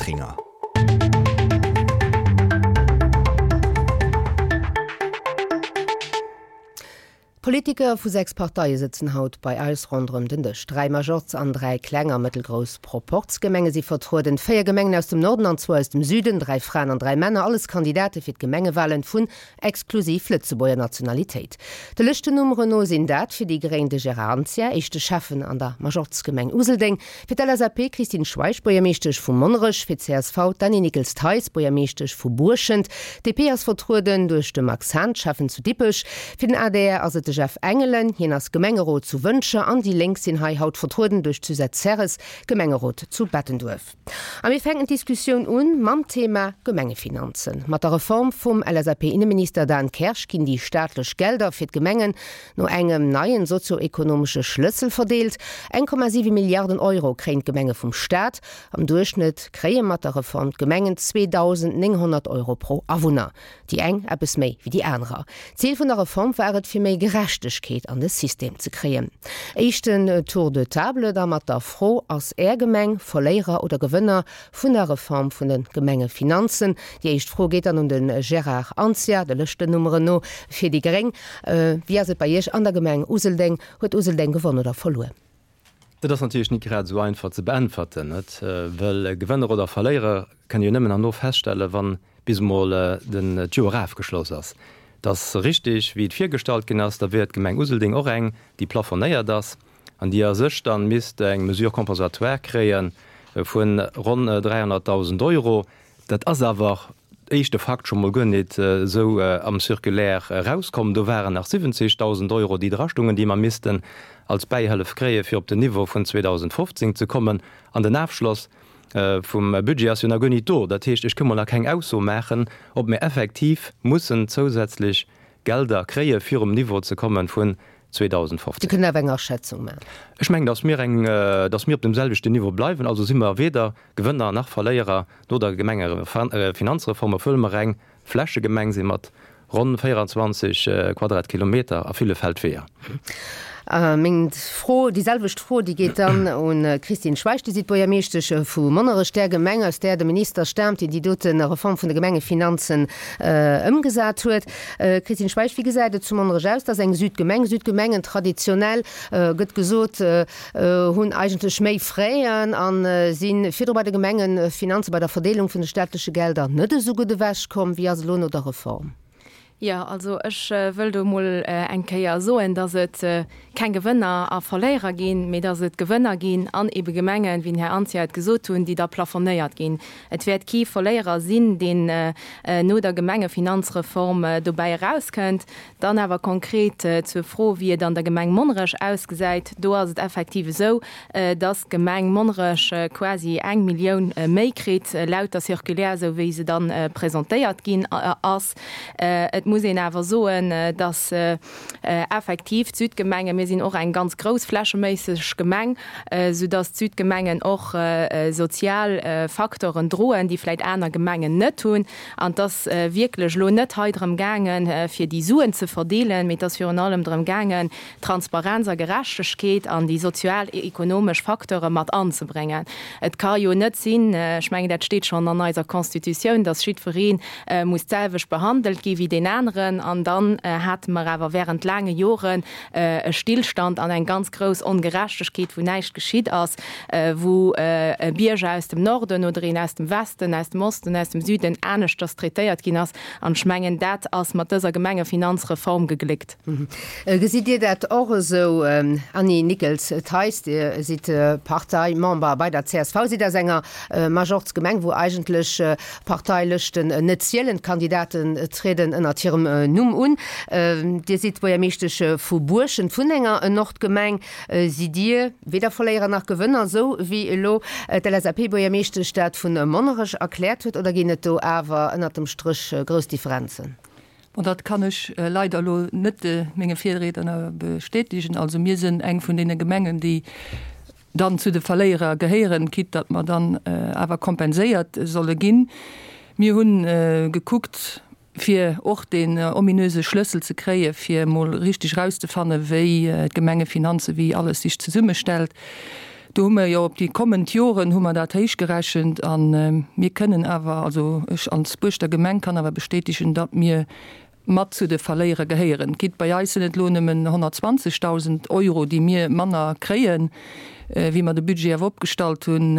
Lotringer. Politiker vu 6 Parteie sëtzen haut bei eis ronderëm den Dësch. 3 Majorz an 3 kleng a mëttelgrouss Proporzgemenge si vertrueden, 4 Gemengen aus dem Norden an zwou aus dem Süden, 3 Fraen an 3 Männer, alles Kandidate fir d'Gemengewalen vun exklusiv Lëtzebuerger Nationalitéit. De Lëschtennummeren no sinn dat fir déi Gréng de Gérard Anzia, éischte Schäffen an der Majorzgemeng Useldeng, Fir d'LSAP d'Christine Schweich, Buergermeeschtesch vu Monnerech, fir d'CSV d'Annie Nickels-Theis, Buergermeeschtesch vu Buerschent. D'DP ass vertrueden duerch de Max Hahn, Schäffen zu Dippech. Fir den adr ass et de Jeff Engelen, hien ass Gemengerot zu Wëntger. An déi Lénk sinn hei haut vertrueden duerch d'Suzette Serres, Gemengerot zu Bettenduerf. A mir fänken d'Diskussioun un mam Thema Gemengefinanzen. Mat der Reform vum LSAP-Inneminister Dan Kersch ginn déi staatlech Gelder fir d'Gemengen No engem neien sozio-ekonomesche Schlëssel verdeelt. 1,7 Milliarden Euro kréien d'Gemenge vum Staat. Am Duerchschnëtt kréie mat der Reform d'Gemengen 2.900 Euro pro Awunner. Déi eng eppes méi wéi déi anerer. Zil vun der Reform war et, fir méi Gerechtegkeet an de System ze kréien. Éischten Tour de table da mat der Fro, Ass Är Gemeng Verléierer oder Gewënner vun der Reform vun de Gemengefinanzen? Déi éischt Fro geet dann un de Gérard Anzia, de Lëschtennummeren no, fir déi gréng. Wéi ass et bei Iech an der Gemeng Useldeng? Huet Useldeng gewonn oder verluer? Dat ass natierlech nit grad esou einfach ze beäntwerten, net? Well Gewënner oder Verléierer kënne jo nëmmen herno feststellen, wann bis emol den d'Joer afgeschloss ass. Et ass richtig, wéi et virgestallt ginn ass, da wier d'Gemeng Useldeng och eng, déi plafonéiert ass an déi a sech dann misst eng Mesure compensatoire kréie vu ronn 300.000 Euro. Dat ass awer, éischte Fakt, scho mol guer nit esou am Circulaire erauskomm. Do waren nach 70.000 Euro, déi drastungen, déi mer missten als Bäihëllef kréien, fir op den Niveau vun 2015 ze kommen. An den Afschloss vum Budget ass jo nach guer nit do. Dat heescht, ech ka mol nach keng Ausso maachen, ob mir effektiv mussen zousätzlech Gelder kréien, fir um Niveau ze kommen vun 2015. Dir kënnt awer eng Aschätzung maachen. Ech mengen, datt mir eng, datt mir op dem selwechten Niveau bleiwen. Also si mer weder Gewënner nach Verléierer no der Gemengefinanzreform, obwuel mer eng Flächegemeng si mat ronn 24 Quadratkilometer a ville Feldweeër. Meng Fro, déi selwecht Fro, déi geet dann un d'Christine Schweich. Dir sidd Buergermeeschtesch vu Monnerech, där Gemeng, aus där de Minister staamt, deen déi dote Reform vun de Gemengefinanzen ëmgesat huet. Christine Schweich, wéi gesäit et zu Monnerech aus? Dat ass eng Südgemeng. Südgemengen, traditionell gëtt gesot, hunn eigentlech méi Fräen a si virdru bei de Gemengefinanzen, bei der Verdeelung vun de staatleche Gelder net esou gutt ewechkomm. Wéi ass elo no der Reform? Jo, also ech wëll do emol eng Kéier soen, datt et keng Gewënner a Verléierer ginn, mee datt et Gewënner ginn an ebe Gemengen, wéi den Här Anzia et gesot hunn, déi da plafonnéiert ginn. Et wäert kee Verléierer sinn, deen no der Gemengefinanzreform dobäi erauskënnt. Dann awer konkret zur Fro, wéi et an der Gemeng Monnerech ausgesäit. Do ass et effektiv esou, dass d'Gemeng Monnerech quasi eng Millioun méi kritt, laut der Circulaire, esou wéi se dann presentéiert ginn ass. Et muss een awer soen, dass effektiv d'Südgemengen, mir sinn och eng ganz grouss flächeméisseg Gemeng, soudass d'Südgemengen och sozial Facteuren droen, déi vläicht aner Gemengen net hunn. An et ass wierklech elo net hei drëm gaangen, fir déi Suen ze verdeelen, mee et ass virun allem drëm gaangen, Transparenz a Gerechtegkeet an déi sozial-ekonomesch Facteure mat anzebréngen. Et ka jo net sinn, ech mengen, dat steet schonn an eiser Constitutioun, dass jiddweree muss d'selwecht behandelt gi wéi deen aneren. An dann hate mer awer während laange Joren e Stillstand an eng ganz grouss Ongerechtegkeet, wou näischt geschitt ass, wou e Bierger aus dem Norden oder een aus dem Westen, aus dem Osten, aus dem Süden aneschters traitéiert ginn ass. An ech mengen, dat ass mat dëser Gemengefinanzreform gegléckt. Gesitt Dir dat och esou, Annie Nickels-Theis? Dir sidd Parteimember bei der csv, sidd aus enger Majorz-Gemeng, wou eigentlech Parteilëschten net zielen, d'Kandidaten trieden ënnert hirem Numm un. Dir sidd Buergermeeschtesch vu Buerschent, vun enger Nordgemeng. Sidd Dir weder Verléierer nach Gewënner, esou wéi elo d'LSAP-Buergermeeschtesch dat vu Monnerech erkläert huet, oder ginn et do awer ënnert dem Stréch grouss Differenzen? Bon, dat kann ech leider elo net menge Virriedner bestätigen. Also mir sinn eng vun deene Gemengen, déi dann zu de Verléierer gehéieren, quitte datt mer dann awer kompenséiert solle ginn. Mir hu gekuckt, fir och deen ominöse Schlëssel ze kréien, fir emol richteg erauszefannen, wéi d'Gemengefinanzen, wéi alles sech zesummestellt. Do hu mer jo op déi kommend Joren hu mer dat héichgerechent a mir kënnen awer, also ech als Buerschter Gemeng kann awer bestätegen, datt mir mat zu de Verléierer gehéieren. Quitte bei eis sinn et elo nëmmen 120.000 Euro, déi mir manner kréien, wéi mer de Budget awer opgestallt hunn,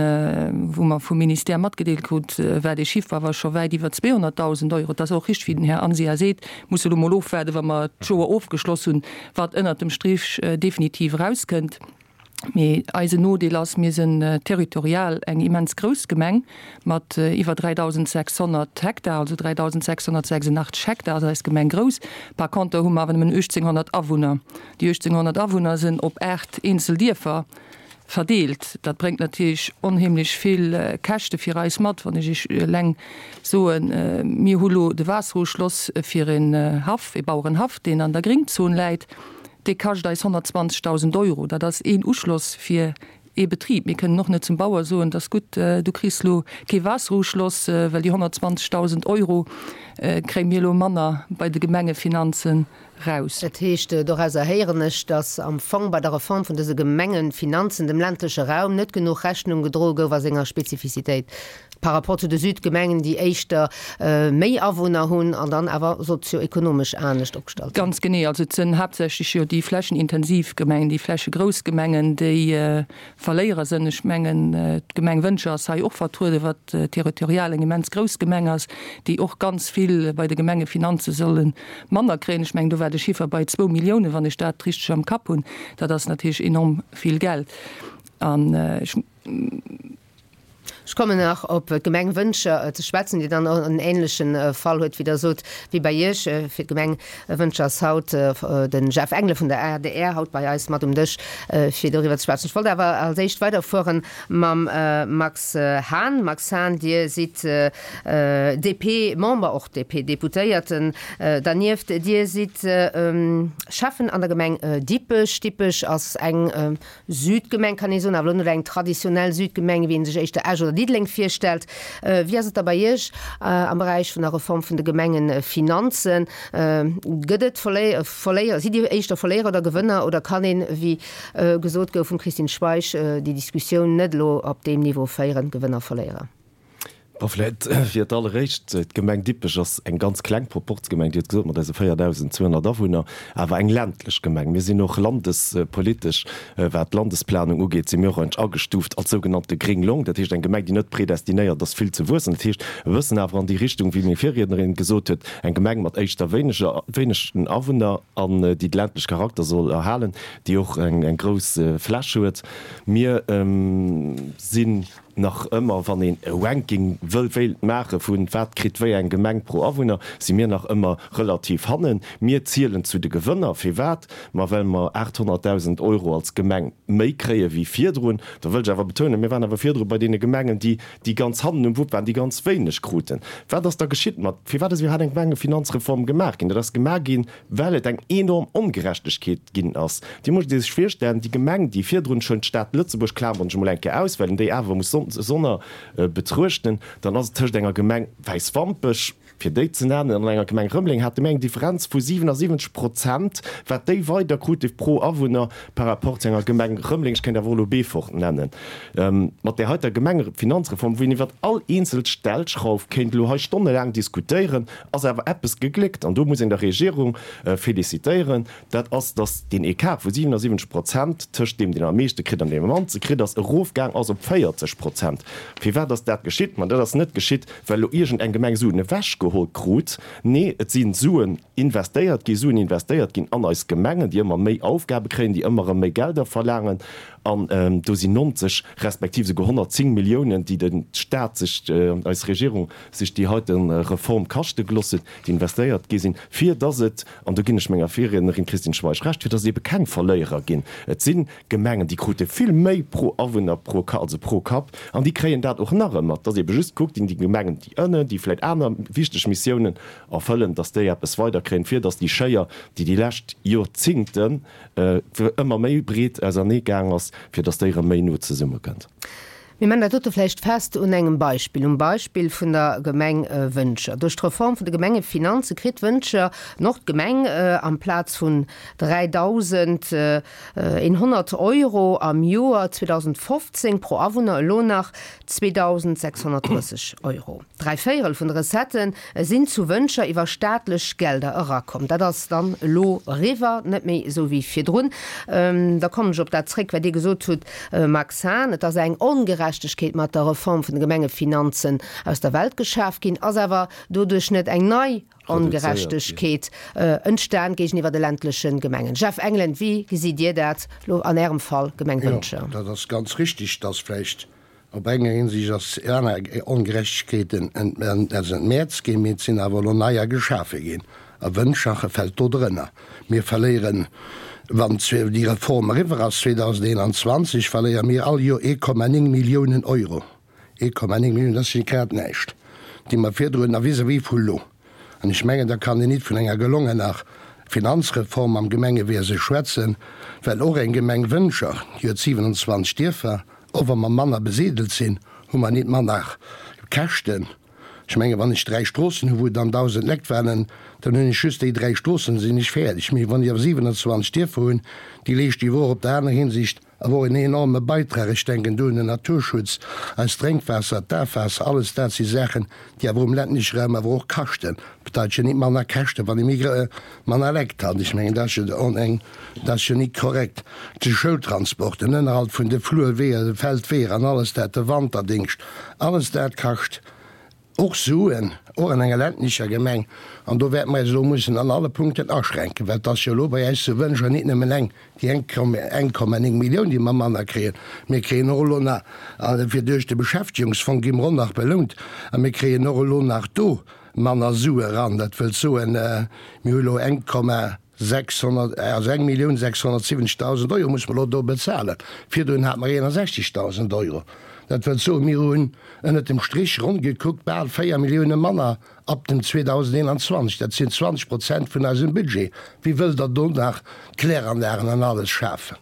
wou mer vum Ministère matgedeelt krut, war dee Chiffre awer scho wäit iwwer 200.000 Euro. Et ass och richteg, wéi den Här Anzia seet, musse elo mol ofwaarden, wa mer d'Joer ofgeschloss hunn, wat ënnert dem Strich definitiv erauskënnt. Mee eisen Nodeel ass, mir sinn territorial eng immens grouss Gemeng mat iwwer 3.600 Hektar, also 3.686 Hektar ass eis Gemeng grouss. Par conter hu mer awer nëmmen 1.800 Awunner. Déi 1.800 Awunner sinn op 8 eenzel Dierfer verdeelt. Dat bréngt natierlech onheemlech vill Käschte fir eis mat. Wann ech Iech eleng soen, mir hu lo de Waasseruschloss fir en Haff, e Bauerenhaff, deen an der Gringzon läit, Dee kascht eis 120.000 Euro. Dat ass een Uschloss fir ee Betrib. Mir kënnen och net zum Bauer soen, 't ass gutt, du kriss lo kee Waasseruschloss, well déi 120.000 Euro kréie mir elo manner bei de Gemengefinanzen raus. Dat heescht, dorauser héieren ech, datt am Fong bei der Reform vun dëse Gemengefinanzen dem ländleche Raum net genuch Rechnung gedroe gouf a senger Spezifizitéit. Par rapport zu de Südgemengen, déi éischter méi Awunner hunn an dann awer sozio-ekonomesch anescht opgestallt sinn. Ganz genee. Also et sinn haaptsächlech jo déi flächenintensiv Gemengen, déi flächegrouss Gemengen, déi Verléierer sinn. Ech mengen, d'Gemeng Wëntger ass hei och vertrueden, wat territorial eng immens grouss Gemeng ass, déi och ganz vill bei de Gemengefinanze solle manner kréien. Ech mengen, do war de Chiffer bei zwou Milliounen, wann ech dat richteg am Kapp hunn. Dat ass natierlech enorm vill Geld. An ech. Ech kommen nach op d'Gemeng Wëntger ze schwätzen, déi dann och en ähnleche Fall huet, wéi Der sot, wéi bei Iech. Fir d'Gemeng Wëntger ass haut de Jeff Engelen vun der adr haut bei eis mat um Dësch, fir doriwwer ze schwätzen. Ech wollt awer als éischt weiderfuere mam Max Hahn. Max Hahn, Dir sidd DP-Member, och DP-Deputéierten dernieft. Dir sidd Schäffen an der Gemeng Dippech. Dippech ass eng Südgemeng kann ee soen, awer elo net eng traditionell Südgemeng, wéi ee sech éischter Esch oder Diddeleng virstellt. Wéi ass et da bei Iech am Beräich vun der Reform vun de Gemengefinanzen? Gëtt et Verléier, sidd Dir éischter Verléierer oder Gewënner oder kann een, wéi gesot gouf vum Christine Schweich, déi Diskussioun net elo op deem Niveau féieren, Gewënner, Verléierer? Bon, vläit fir d'alleréischt, D'Gemeng Dippech ass eng ganz kleng Proporzgemeng, Dir hutt gesot, mat eise 4.200 Awunner, awer eng ländlech Gemeng. Mir sinn och landespolitesch, wat d'Landesplanung ugeet, si mir och eigentlech agestuuft als sougenannte gréng Long, dat heescht eng Gemeng, déi net predestinéiert ass, vill ze wuessen. Dat heescht e bëssen awer an déi Richtung, wéi meng Virriednerin gesot huet, eng Gemeng mat éischter wéineger, wéinegen Awunner an déi de ländleche Charakter soll erhalen, déi och eng grouss Fläch huet. Mir sinn. Nach ëmmer, wann een e Ranking wëll wéilt maache vu wat kritt wéi eng Gemeng pro Awunner, si mir nach ëmmer relativ hannen. Mir zielen zu de Gewënner. Firwat? Ma well mer 800.000 Euro als Gemeng méi kréie wéi virdrun. Da wëll ech awer betounen, mir waren awer virdru bei deene Gemengen, déi déi ganz hannen um Wupp waren, déi ganz wéineg kruten. Wat ass da geschitt mat, firwat ass iwwerhaapt eng Gemengefinanzreform gemaach ginn? Dat ass gemaach ginn, well et eng enorm Ongerechtegkeet ginn ass. Dir musst Iech virstellen, déi Gemeng, déi virdrun schon d'Stad Lëtzebuerg, klamern ech emol eng Kéier aus, well een déi awer muss sonner betruechten, dann ass et tëscht enger Gemeng Wäiswampech, fir déi ze nennen, an enger Gemeng Rëmeleng hate mir eng Differenz vu 77 Prozent, wat déi weider krute pro Awunner par rapport zu enger Gemeng Rëmeleng, ech kéint awer och elo Beefort nennen. Mat där heiter Gemengefinanzreform, wou een iwwert all eenzel Stellschrauf kéint elo hei stonnelaang diskutéieren, ass awer eppes gegléckt, an do muss een der Regierung félicitéieren, dat ass, datt deen Ecart vu 77 Prozent tëscht deem, deen am meeschte kritt an deem am mannste kritt, ass erofgaang ass op 40 Prozent. Firwat ass dat geschitt? Ma dat ass net geschitt, well elo iergend eng Gemeng Suen ewechgeholl krut. Nee, et si Suen investéiert ginn, Suen investéiert ginn an eis Gemengen, déi ëmmer méi Aufgabe kréien, déi ëmmer erëm méi Gelder verlaangen. An do sinn 90 respektiv esouguer 110 Milliounen, déi de Stat sech, eis Regierung sech déi heite Reform kaschte geloss huet, déi investéiert gi sinn, fir dass et, an do ginn ech menger Virriednerin Christine Schweich Recht, fir dass et ebe keng Verléierer ginn. Et si Gemengen, déi krute vill méi pro Awunner, pro, also pro Kapp, an déi kréien dat och nach ëmmer. Dass ebe just gekuckt ginn, déi Gemengen, déi ënnen, déi vläicht aner wichteg Missiounen erfëllen, dass déi eppes weiderkréien, fir dass déi Schéier, déi déi lescht Jorzingten ëmmer méi breet auserneegaang ass, fir dass déi erëm méi no zesummekënnt. Mir man dat dote vläicht fest un engem Beispill, um Beispill vun der Gemeng Wëntger. Duerch d'Reform vun de Gemengefinanze kritt Wëntger Nord-Gemeng amplaz vun 3.100 Euro am Joer 2015 pro Awunner elo nach 2.630 Euro. Dräivéierel vun de Recettë sinn zu Wëntger iwwer staatlech Gelder erakomm. Dat ass dann elo eriwwer, net méi esou wéi virdrun. Da kommen ech op dat zréck, wat Dir gesot hutt, Max Hahn. Et ass eng Ongerechtegkeet mat der Reform vun de Gemengefinanzen aus der Welt geschaf ginn. Ass awer doduerch net eng nei Ongerechtegkeet entstan géigeniwwer de ländleche Gemengen? Jeff Engelen, wéi gesitt Dir dat elo an Ärem Fall, Gemeng Wëntger? Jo, dat ass ganz richtig, dass vläicht Op enger Hinsicht ass aner Ongerechtegkeeten entmäerzt ginn, mee et sinn awer elo neier geschafe ginn. A Wëntschache fält do drënner. Mir verléieren, wann déi Reform eriwwer ass 2021, verléiere mir all Joer 1,9 Milliounen Euro. 1,9 Milliounen, dat ass jo grad näischt, déi mer virdrun a vis-à-vis vu lo. An ech mengen, da kann een nit vun enger gelongener Finanzreform am Gemengewiese schwätzen, well och eng Gemeng Wëntger, déi huet 27 Dierfer, Och wa mer manner besidelt sinn, hu mer nit manner Käschten. Ech mengen, wann ech dräi Stroossen hu wou dann 1.000 Lekt waren, dann hunn ech just déi dräi Stroossen, sinn ech fäerdeg. Mee wann ech awer 27 Dierfer hunn, déi leeschten iwwer och op der aner Hinsicht awer och en enorme Beitrag. Ech denken do un den Naturschutz, eist Drénkwaasser, d'Afwaasser, alles dat si Saachen, déi awer um ländleche Raum awer och kaschten. Bedeit jo nit manner Käschten, wann ee méi manner Lekt hat. Ech mengen, dat ass jo eng, dat ass jo nit korrekt. De Schoultransport, den Ënnerhalt vun de Flurweeër, de Feldweeër an alles dat, de Wanterdingscht, alles dat kascht och Suen, och an enger ländlecher Gemeng. An do wäerte mer eis elo mussen an alle Punkten aschränken, well et ass jo elo bei eis zu Wëntger nit nëmmen eng, déi 1,9 Millioun, déi mer manner kréien. Mir kréien och elo nach, fir duerch de Beschäftigungsfong gi mer och nach belount, a mir kréien och elo nach do manner Sue eran. Dat wëllt soen, mir hu elo 1,600, also 1.670.000 Euro musse mer elo do bezahlen. Virdrun hate mer 61.000 Euro. Dat wëllt soen, mir hunn ënnert dem Strich ronn gekuckt bal 4 Millioune manner ab dem 2021. Dat sinn 20 Prozent vun eisem Budget. Wéi wëllt Der do nach Kläranlagen an alles schafen?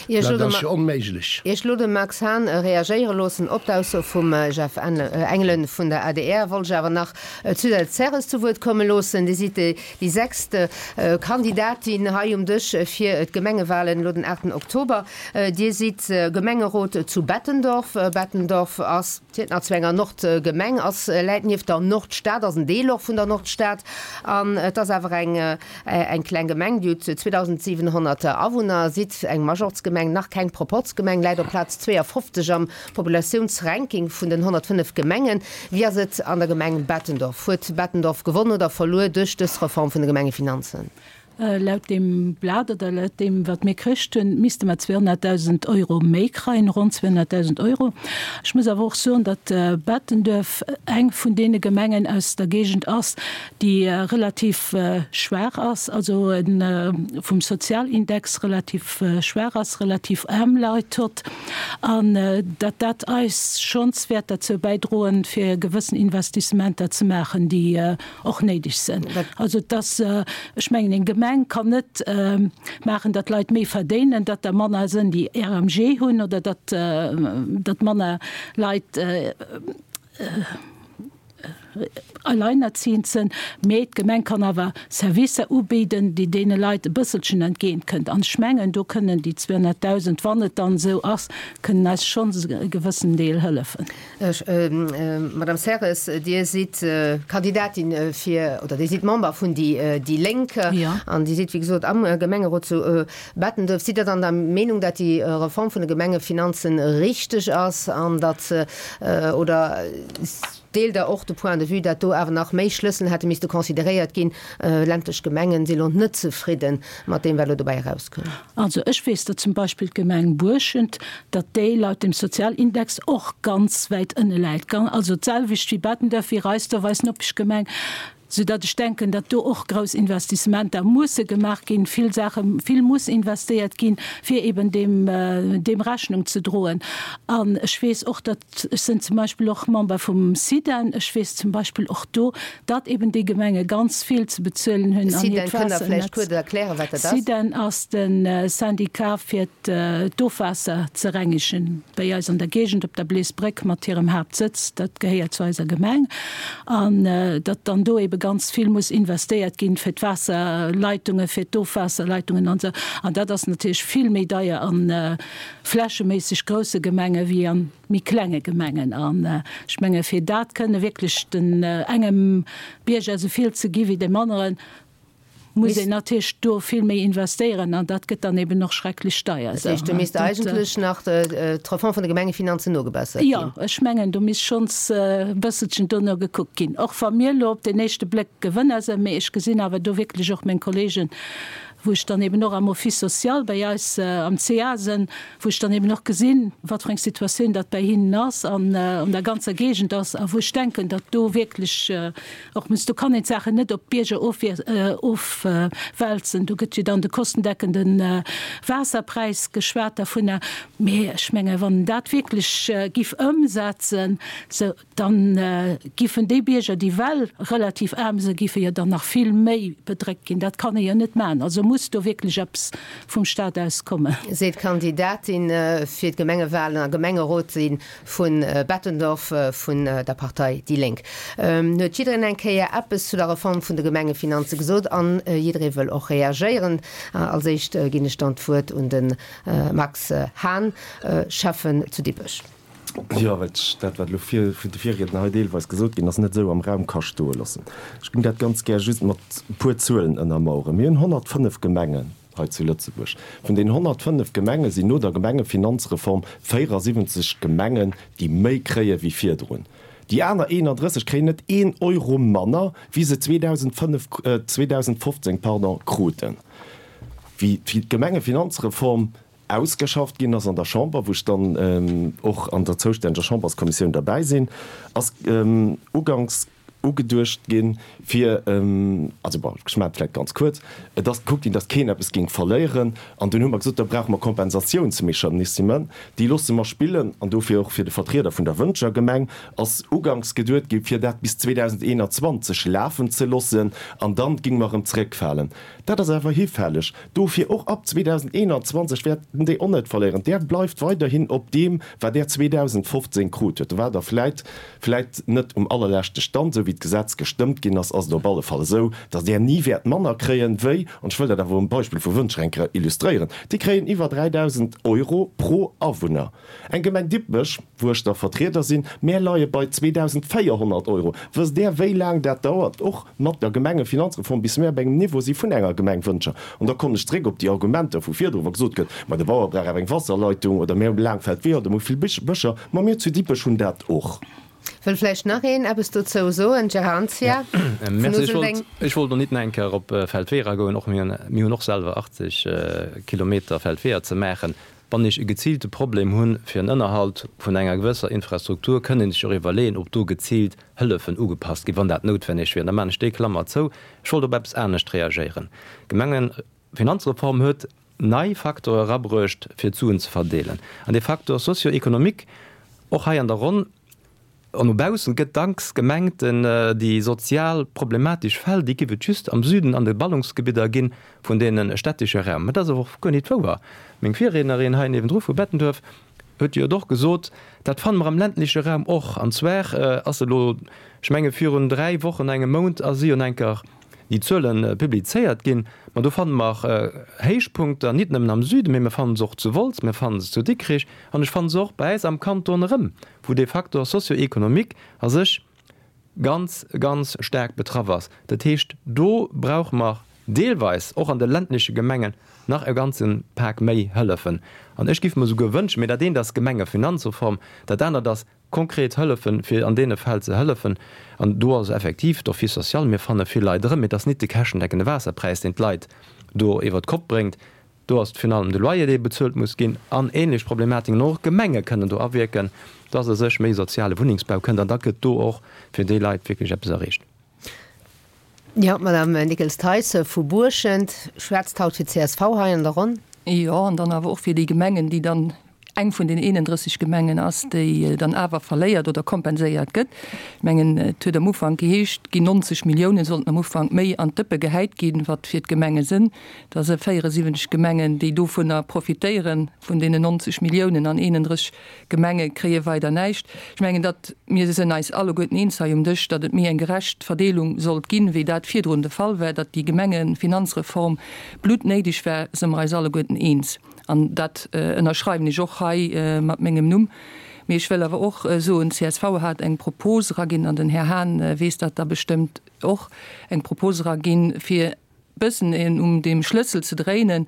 Dat ass jo onméiglech. Ier ech elo de Max Hahn reagéiere loossen op d'Ausso vum Jeff Engelen vun der adr, wollt ech awer nach d'Suzette Serres zu Wuert komme loossen. Dir sidd déi sechst Kandidatin hei um Dësch fir d'Gemengewalen elo den 8 Oktober. Dir sidd Gemengerot zu Bettendorf. Bettendorf ass, zielt nach zu enger Nordgemeng, ass, läit nieft der Nordstad, ass en Deel och vun der Nordstad an et ass awer eng eng kleng Gemeng, déi huet 2.700 Awunner, sidd eng Majorzgemeng, nach keng Proporzgemeng, läit op Plaz 52 am Populatiounsranking vun den 105 Gemengen. Wéi ass et an der Gemeng Bettendorf? Huet Bettendorf gewonn oder verluer duerch dës Reform vun de Gemengefinanzen? Laut deem Blat oder laut deem, wat mir kricht hunn, misste mer 200.000 Euro méi kreien, ronn 200.000 Euro. Ech muss awer och soen, datt Bettenduerf eng vun deene Gemengen aus der Géigend ass, déi relativ schwaach ass, also vum Sozialindex relativ schwaach ass, relativ aarm Leit hutt, an datt dat eis schonns wäert derzou bäidroen, fir gewëssen Investissementer ze maachen, déi och néideg sinn. Also et ass, ech mengen, eng Gemeng kann net maachen, datt Leit méi verdéinen, datt der manner sinn, déi RMG hunn, oder datt datt manner Leit alleinerziehend sinn, mee d'Gemeng kann awer Servicer ubidden, déi deene Leit e bësselchen entgéint kënnt. An ech mengen, do kënnen déi 200.000, wann et dann esou ass, kënnen eis schonns e gewëssen Deel hëllefen. Madame Serres, Dir sidd Kandidatin fir, oder Dir sidd Member vun déi Lénk an Dir sidd, wéi gesot, am Gemengerot zu Bettenduerf. Sidd Der dann der Meenung, datt déi Reform vun de Gemengefinanzen richteg ass an datt, oder deelt Der och de Point de vue, datt do awer nach méi Schlëssel hätte misste consideréiert ginn? Ländlech Gemengen si lo net zefridde mat deem, wat elo dobäi erauskoum. Also ech weess, datt zum Beispill d'Gemeng Buerschent, datt déi laut dem Sozialindex och ganz wäit ënne läit, also d'selwecht wéi Bettenduerf, wéi Reisduerf, eis Nopeschgemeng. Soudatt ech denken, datt do och grouss Investissementer musse gemaach ginn, vill Saache, vill muss investéiert ginn, fir eben deem, deem Rechnung ze droen. An ech weess och, datt, ech sinn zum Beispill och Member vum SIDEN, ech weess zum Beispill och do, datt eben déi Gemenge ganz vill ze bezuelen hunn an hiert Waasser. SIDEN, kënnt Der vläicht kuerz erklären, wat dat ass? SIDEN ass de Syndicat fir d'Ofwaasser ze rengegen bäi eis an der Géigend op der Bleesbréck mat hirem Haaptsëtz, dat gehéiert zu eiser Gemeng, an datt dann do ebe ganz vill muss investéiert ginn fir d'Waasserleitungen, fir d'Ofwaasserleitungen an esou. An dat ass natierlech vill méi deier a flächeméisseg grousse Gemenge wéi a méi klenge Gemengen. An ech menge fir dat kënne wierklech den engem Bierger esou vill ze gi wéi deem aneren, muss een natierlech do vill méi investéieren an dat gëtt dann eben och schrecklech deier. Dat heescht, do misst eigentlech nach d'Reform vun de Gemengefinanzen nogebessert ginn? Jo, ech mengen, do misst schonns e bësselchen dono gekuckt ginn. Och wa mir elo op den éischte Bléck Gewënner sinn, mee ech gesinn awer do wierklech och meng Kollegen, wou ech dann eben och am Office social bei eis am CA sinn, wou ech dann eben och gesinn, wat fir eng Situatioun dat bei hinnen ass an an der ganzer Géigend ass a wou ech denken, datt do wierklech Och muss, do kann een d'Saachen net op d'Bierger ofwälzen. Do gëtt jo dann de kostendeckende Waasserpräis geschwat dervunner. Mee ech menge wann een dat wierklech giff ëmsetzen, sou dann giffen déi Bierger, déi well relativ aarm sinn, giffe jo dann nach vill méi bedréckt ginn. Dat kann ee jo net maachen. Also muss do wierklech eppes vum Stat aus kommen. Seet d'Kandidatin fir d'Gemengewalen a Gemengerot si Vu Bettendorf vun der Partei déi Lénk huet jiddereen eng Kéier eppes zu der Reform vun de Gemengefinanze gesot an jidderee wëll och reagéieren. Als éischt ginn ech dann d'Wuert un de Max Hahn, Schäffen zu Dippech. Jo, well ech dat, wat elo vun de Virriedner hei deelweis gesot ginn ass, net esou am Raum ka stoe loossen. Ech géing dat ganz gär just mat e puer Zuelen ënnermaueren. Mir hunn 105 Gemengen. Hei zu Lëtzebuerg. Vun den 105 Gemenge sinn no der Gemengefinanzreform 74 Gemengen, déi méi kréie wéi virdrun. Déi aner 31 kréien net een Euro manner, wéi se 2005, 2015, pardon, kruten. Wéi d'Gemengefinanzreform ausgeschafft ginn ass an der Chamber, wou ech dann och an der zoustänneger Chamberskommissioun derbäi sinn, ass uganks, ugeduecht ginn, fir, also bon, ech maachen et vläicht ganz kuerz, et ass gekuckt ginn, datt keen eppes géing verléieren, an dunn hu mer gesot, da brauche mer Kompensatiounsmechanismen, déi loosse mer spillen, an dofir och fir de Vertrieder vun der Wëntger Gemeng ass uganks geduet ginn, fir dat bis 2021 lafen ze loossen, an dann géinge mer erëm zeréckfalen. Dat ass awer hifälleg. Dofir och ab 2021 wäerten déi och net verléieren. Där bleift weiderhin op deem, wat Där 2015 krut huet. Do waart Der vläit, vläit net um allerleschte Stand, esou wéi d'Gesetz gestëmmt ginn ass, ass et op alle Fall esou, datt Där ni wäert manner kréien, wéi, an ech wëll dat awer um Beispill vu Wëntger eng Kéier illustréieren, déi kréien iwwer 3.000 Euro pro Awunner. Eng Gemeng Dippech, wou ech da Vertrieder sinn, mär leie bei 2.400 Euro. Wësst Där, wéi laang dat dauert, och mat der Gemengefinanzreform, bis mär op engem Niveau si vun enger Gemeng Wëntger? An da kommen ech zréck op déi Argumenter vu virdru, wa gesot gëtt, ma de Bauer brauch awer eng Wasserleitung oder mär hu laang Feldweeër oder mir hu vill Bëscher. Ma mir zu Dippech hunn dat och. Wëll vläicht nach een eppes dozou soen? Gérard Anzia vun Merci. Ech wollt, Useldeng. ech wollt och nit nach eng Kéier op Feldweeër agoen. Och mir hunn, mir hunn och selwer 80 Kilometer Feldweeër ze maachen. Wann ech e geziilte Problem hunn fir en Ënnerhalt vun enger gewësser Infrastruktur, kënn een sech och iwwerleeën, ob do geziilt Hëllefen ugepasst ginn, wann dat noutwenneg wier. An da maachen ech déi Klammer zou. Ech wollt op eppes anescht reagéieren. D'Gemengefinanzreform huet nei Facteure erabruecht, fir d'Suen ze verdeelen. An dee Facteur socio-économique, och hei an der Ronn, An no baussen gëtt dacks gemengt, déi sozial problematesch Fäll, déi giff et just am Süden an de Ballungsgebidder ginn vun deene städtesche Raum. Mä dat ass awer och guer nit wouer. Meng Virriednerin hei niewendru vu Bettenduerf huet jo et och gesot, dat fanne mer am ländleche Raum och. An zwar ass elo, ech menge virun 3 Wochen, engem Mount ass si un enker déi Zuele publizéiert ginn. Ma do fanne mer Héichpunkter nit nëmmen am Süden, mee mer fanne se och zu Wolz, mer fanne se zu Dikrich an ech fanne se och bei äis am Kanton erëm. wou dee Facteur socio-économique a sech ganz, ganz staark betraff ass. Dat heescht, do brauche mer deelweis och an de ländleche Gemengen nach e ganze Pak méi Hëllefen. An ech géif mer souguer wënschen, mee dat eent ass d'Gemengefinanzreform, dat anert ass konkret Hëllefen, fir an deene Fäll ze hëllefen. An do ass effektiv d'Office social, mir fanne vill Leit erëm, mee et ass nit de käschtendeckende Waasserpräis, deen d'Leit do iwwert d'Kopp bréngt. Do ass virun allem de Loyer, dee bezuelt muss ginn, an ähnlech Problematiken. Och d'Gemenge kënnen do awierken, dass a sech méi soziale Wunnengsbau kënnt, an da gëtt do och fir déi Leit wierklech eppes erreecht. Jo, d'Madame Nickels-Theis vu Buerschent schwätzt haut fir d'CSV hei an der Ronn. Jo, an dann awer och fir déi Gemengen, déi dann eng vun den 31 Gemengen ass, déi dann awer verléiert oder kompenséiert gëtt. Ech mengen, et huet am Ufank geheescht, et ginn 90 Milliounen, sollten am Ufank méi an d'Dëppe gehäit ginn, wat fir d'Gemenge sënn. Da si 74 Gemengen, déi dovunner profitéieren, vun deenen 90 Milliounen, an 31 Gemenge kréie weider näischt. Ech mengen, datt mir sënn eis alleguerten eens hei um Dësch, datt et méi eng gerecht Verdeelung sollt ginn, wéi dat virdrun de Fall war, datt déi Gemengefinanzreform bluttnéideg war, së mer eis alleguerten eens. An dat ënnerschreiwen ech och hei mat mengem Numm. Mee ech wëll awer och soen, csv hat eng Propos eraginn, an den Här Hahn weess dat da bestëmmt och, eng Propos eraginn, fir e bëssen um deem Schlëssel ze dréinen,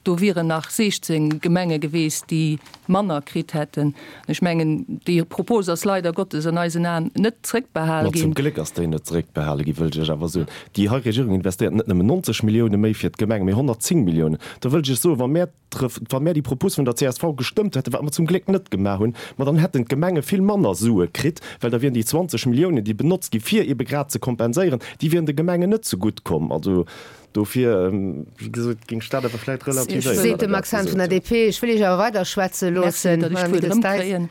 Do wieren nach 16 Gemenge geweest, déi manner kritt hätten. Ech mengen, déi Propos ass leider Gottes an eisen Aen net zrëckbehal ginn. Ma zum Gléck ass déi net zrëckbehale ginn, wëllt ech Iech awer soen. Déi hei Regierung investéiert net nëmmen 90 Millioune méi fir d'Gemenge, mee 110 Milliounen. Da wëllt ech Iech soen, wa mär wa mär déi Propos vun der csv gestëmmt hätten, wat mer zum Gléck net gemaach hunn, ma dann hätten d'Gemenge vill manner Sue kritt, well da wieren déi 20 Milliounen, déi benotzt gi fir eebe grad ze kompenséieren, déi wieren de Gemengen net zegutt komm. Also Dofir, wéi gesot, géing ech dat awer vläicht relativéieren. Seet de Max Hahn vun der DP. Ech wëll Iech awer weider schwätze loossen, Merci, datt ech Madame d'Wuert Nickels-Theis. erëmkréien.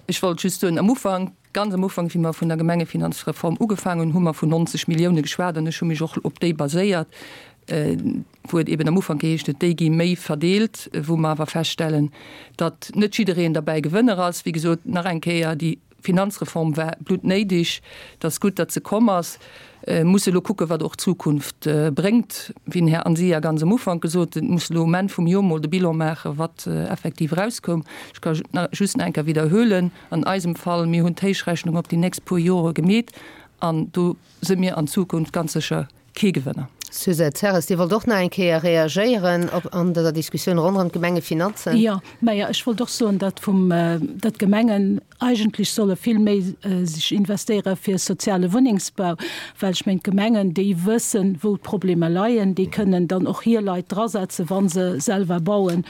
Ech wollt just soen, am Ufank, ganz am Ufank, wéi mer vun der Gemengefinanzreform ugefaangen hunn, hu mer vun 90 Millioune geschwat an ech hu mech och op déi baséiert, wou et eben am Ufank geheescht huet, déi gi méi verdeelt, wou mer awer feststellen, datt net jiddereen derbäi Gewënner ass. Wéi gesot, nach eng Kéier, déi Finanzreform war bluttnéideg. Et ass gutt, datt se komm ass. Mir musse elo kucken, wat och d'Zukunft bréngt. Wéi den Här Anzia ganz am Ufank gesot huet, musse elo um Enn vum Jor mol de Bilan maachen, wat effektiv erauskoum. Ech ka just nach eng Kéier widderhuelen, An eisem Fall, mir hunn d'Héichrechnung op déi nächst puer Jore gemeet an do si mir an Zukunft ganz sécher kee Gewënner. Suzette Serres, Dir wollt och nach eng Kéier reagéieren op an dëser Diskussioun ronderëm d'Gemengefinanzen. Jo, majo, ech wollt och soen, datt vum, datt d'Gemengen eigentlech solle vill méi sech investéiere fir soziale Wunnengsbau, well ech mengen, d'Gemengen, déi wëssen, wou d'Problemer leien, déi kënnen dann och hir Leit drasetzen, wa se selwer bauen.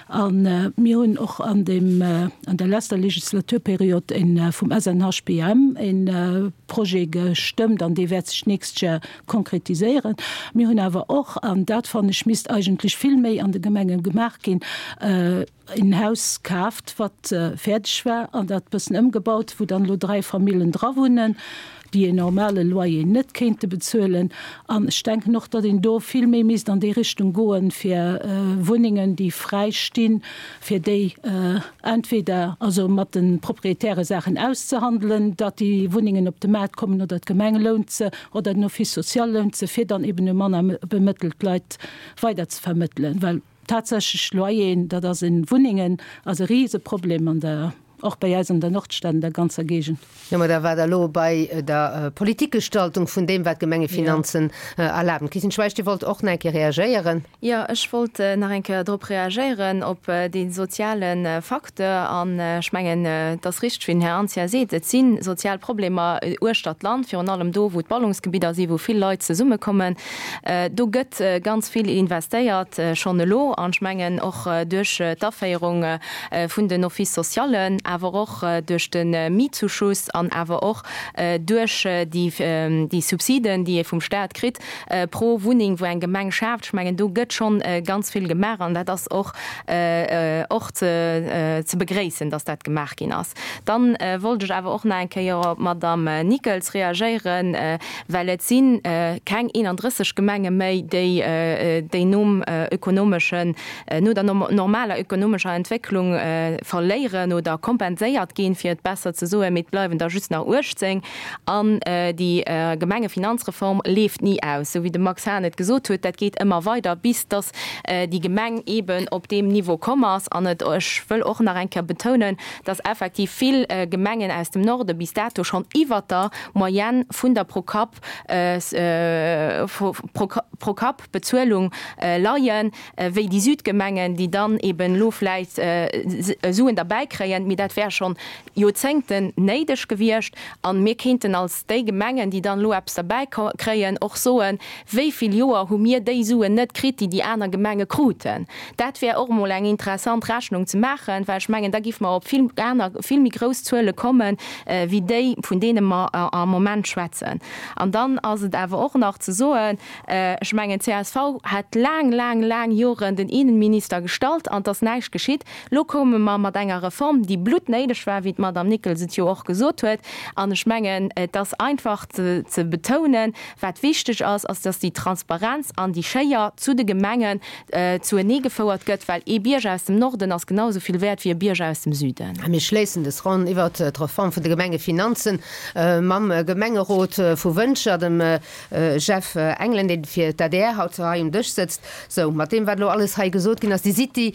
A mir hunn och an deem, an der leschter Legislaturperiod e vum SNHBM e Projet gestëmmt an dee wäert sech d'nächst Jar konkretiséieren. Mir hunn awer och, an dat fannen ech misst eigentlech vill méi an de Gemenge gemaach ginn, en Haus kaaft, wat fäerdeg war an dat bëssen ëmgebaut, wou dann elo 3 Famillen dra wunnen, déi en normale Loyer net kéinte bezuelen. An ech denken och, datt een do vill méi misst an déi Richtung goen, fir Wunnengen, déi fräi stinn, fir déi entweder also mat de Proprietäre Saachen auszehandelen, datt déi Wunnengen op de Maart kommen, oder d'Gemeng lount se, oder den Office social lount se, fir dann eben u manner bemëttelt Leit weiderzevermëttelen. Well tatsächlech Loyeren, dat ass en, Wunnengen ass e Riseproblem an der Och bei eis an der Nordstad, an der ganzer Géigend. Jo, mä da war Der elo bei der Politikgestaltung vun deem, wat d'Gemengefinanzen erlaben. Christine Schweich, Dir wollt och nach eng Kéier reagéieren. Jo, ech wollt nach eng Kéier drop reagéieren, op dee soziale Facteur. An ech mengen, et ass richteg, wéi den Här Anzia seet, et si sozial Problemer uechtert d'Land, virun allem do, wou d'Ballungsgebidder sinn, wou vill Leit zesummekommen. Do gëtt ganz vill investéiert schonn elo. An ech mengen, och duerch d'Aféierung vun den Office socialen, awer och duerch de Mietzuschuss an awer och duerch déi Subsiden, déi ee vum Stat kritt pro Wunneng, wou eng Gemeng schaaft. Ech mengen, do gëtt schonn ganz vill gemaach an dat ass och och ze begréissen, dass dat gemaach ginn ass. Dann wollt ech awer och nach eng Kéier op d'Madame Nickels reagéieren, well et si keng 31 Gemenge méi, déi nom ökonomeschen no der normaler ökonomescher Entwécklung verléieren oder kompenséiert ginn, fir et besser ze soen, mee et bleiwen der just nach 18. An déi Gemengefinanzreform leeft ni aus, esou wéi de Max Hahn et gesot huet, dat geet ëmmer weider, bis datt déi Gemeng eeben op deem Niveau komm ass. An et, ech wëll och nach eng Kéier betounen, datt effektiv vill Gemengen aus dem Norde bis dato schonn iwwert der Moyenne vun der Pro-Kapp, Pro-Kapp-Bezuelung leien, wéi déi Südgemengen, déi dann eben elo vläicht Suen derbäi kréien. Mee dat. Dat wär schonn Joerzéngten néideg gewiescht. A mir kéinten als déi Gemengen, déi dann elo eppes derbäi kréien, och soen, Wéi vill Joer hu mir déi Suen net kritt, déi déi aner Gemenge kruten? Dat wär och emol eng interessant Rechnung ze maachen, well ech mengen, da géife mer op vill aner, vill méi grouss Zuele kommen, wéi déi, vun deene mer am Moment schwätzen. An dann ass et awer och nach ze soen, ech mengen, csv hat laang, laang, laang Joren den Innenminister gestallt an et ass näischt geschitt. Elo koume mer mat enger Reform, déi bluttnéideg war, wéi d'Madame Nickels et jo och gesot huet. An ech mengen, et ass einfach ze betounen, Wat wichteg ass, ass, dass déi Transparenz an déi Schéier zu de Gemengen zuenee gefouert gëtt, well ee Bierger aus dem Norden ass genau esou vill wäert wéi e Bierger aus dem Süden. A mir schléissen des Ronn iwwert d'Reform vun de Gemengefinanzen mam Gemengerot vu Wëntger, dem Jeff Engelen, dee fir d'ADR haut hei um Dësch sëtzt. Sou, mat deem, wat elo alles hei gesot ginn ass, Dir sidd déi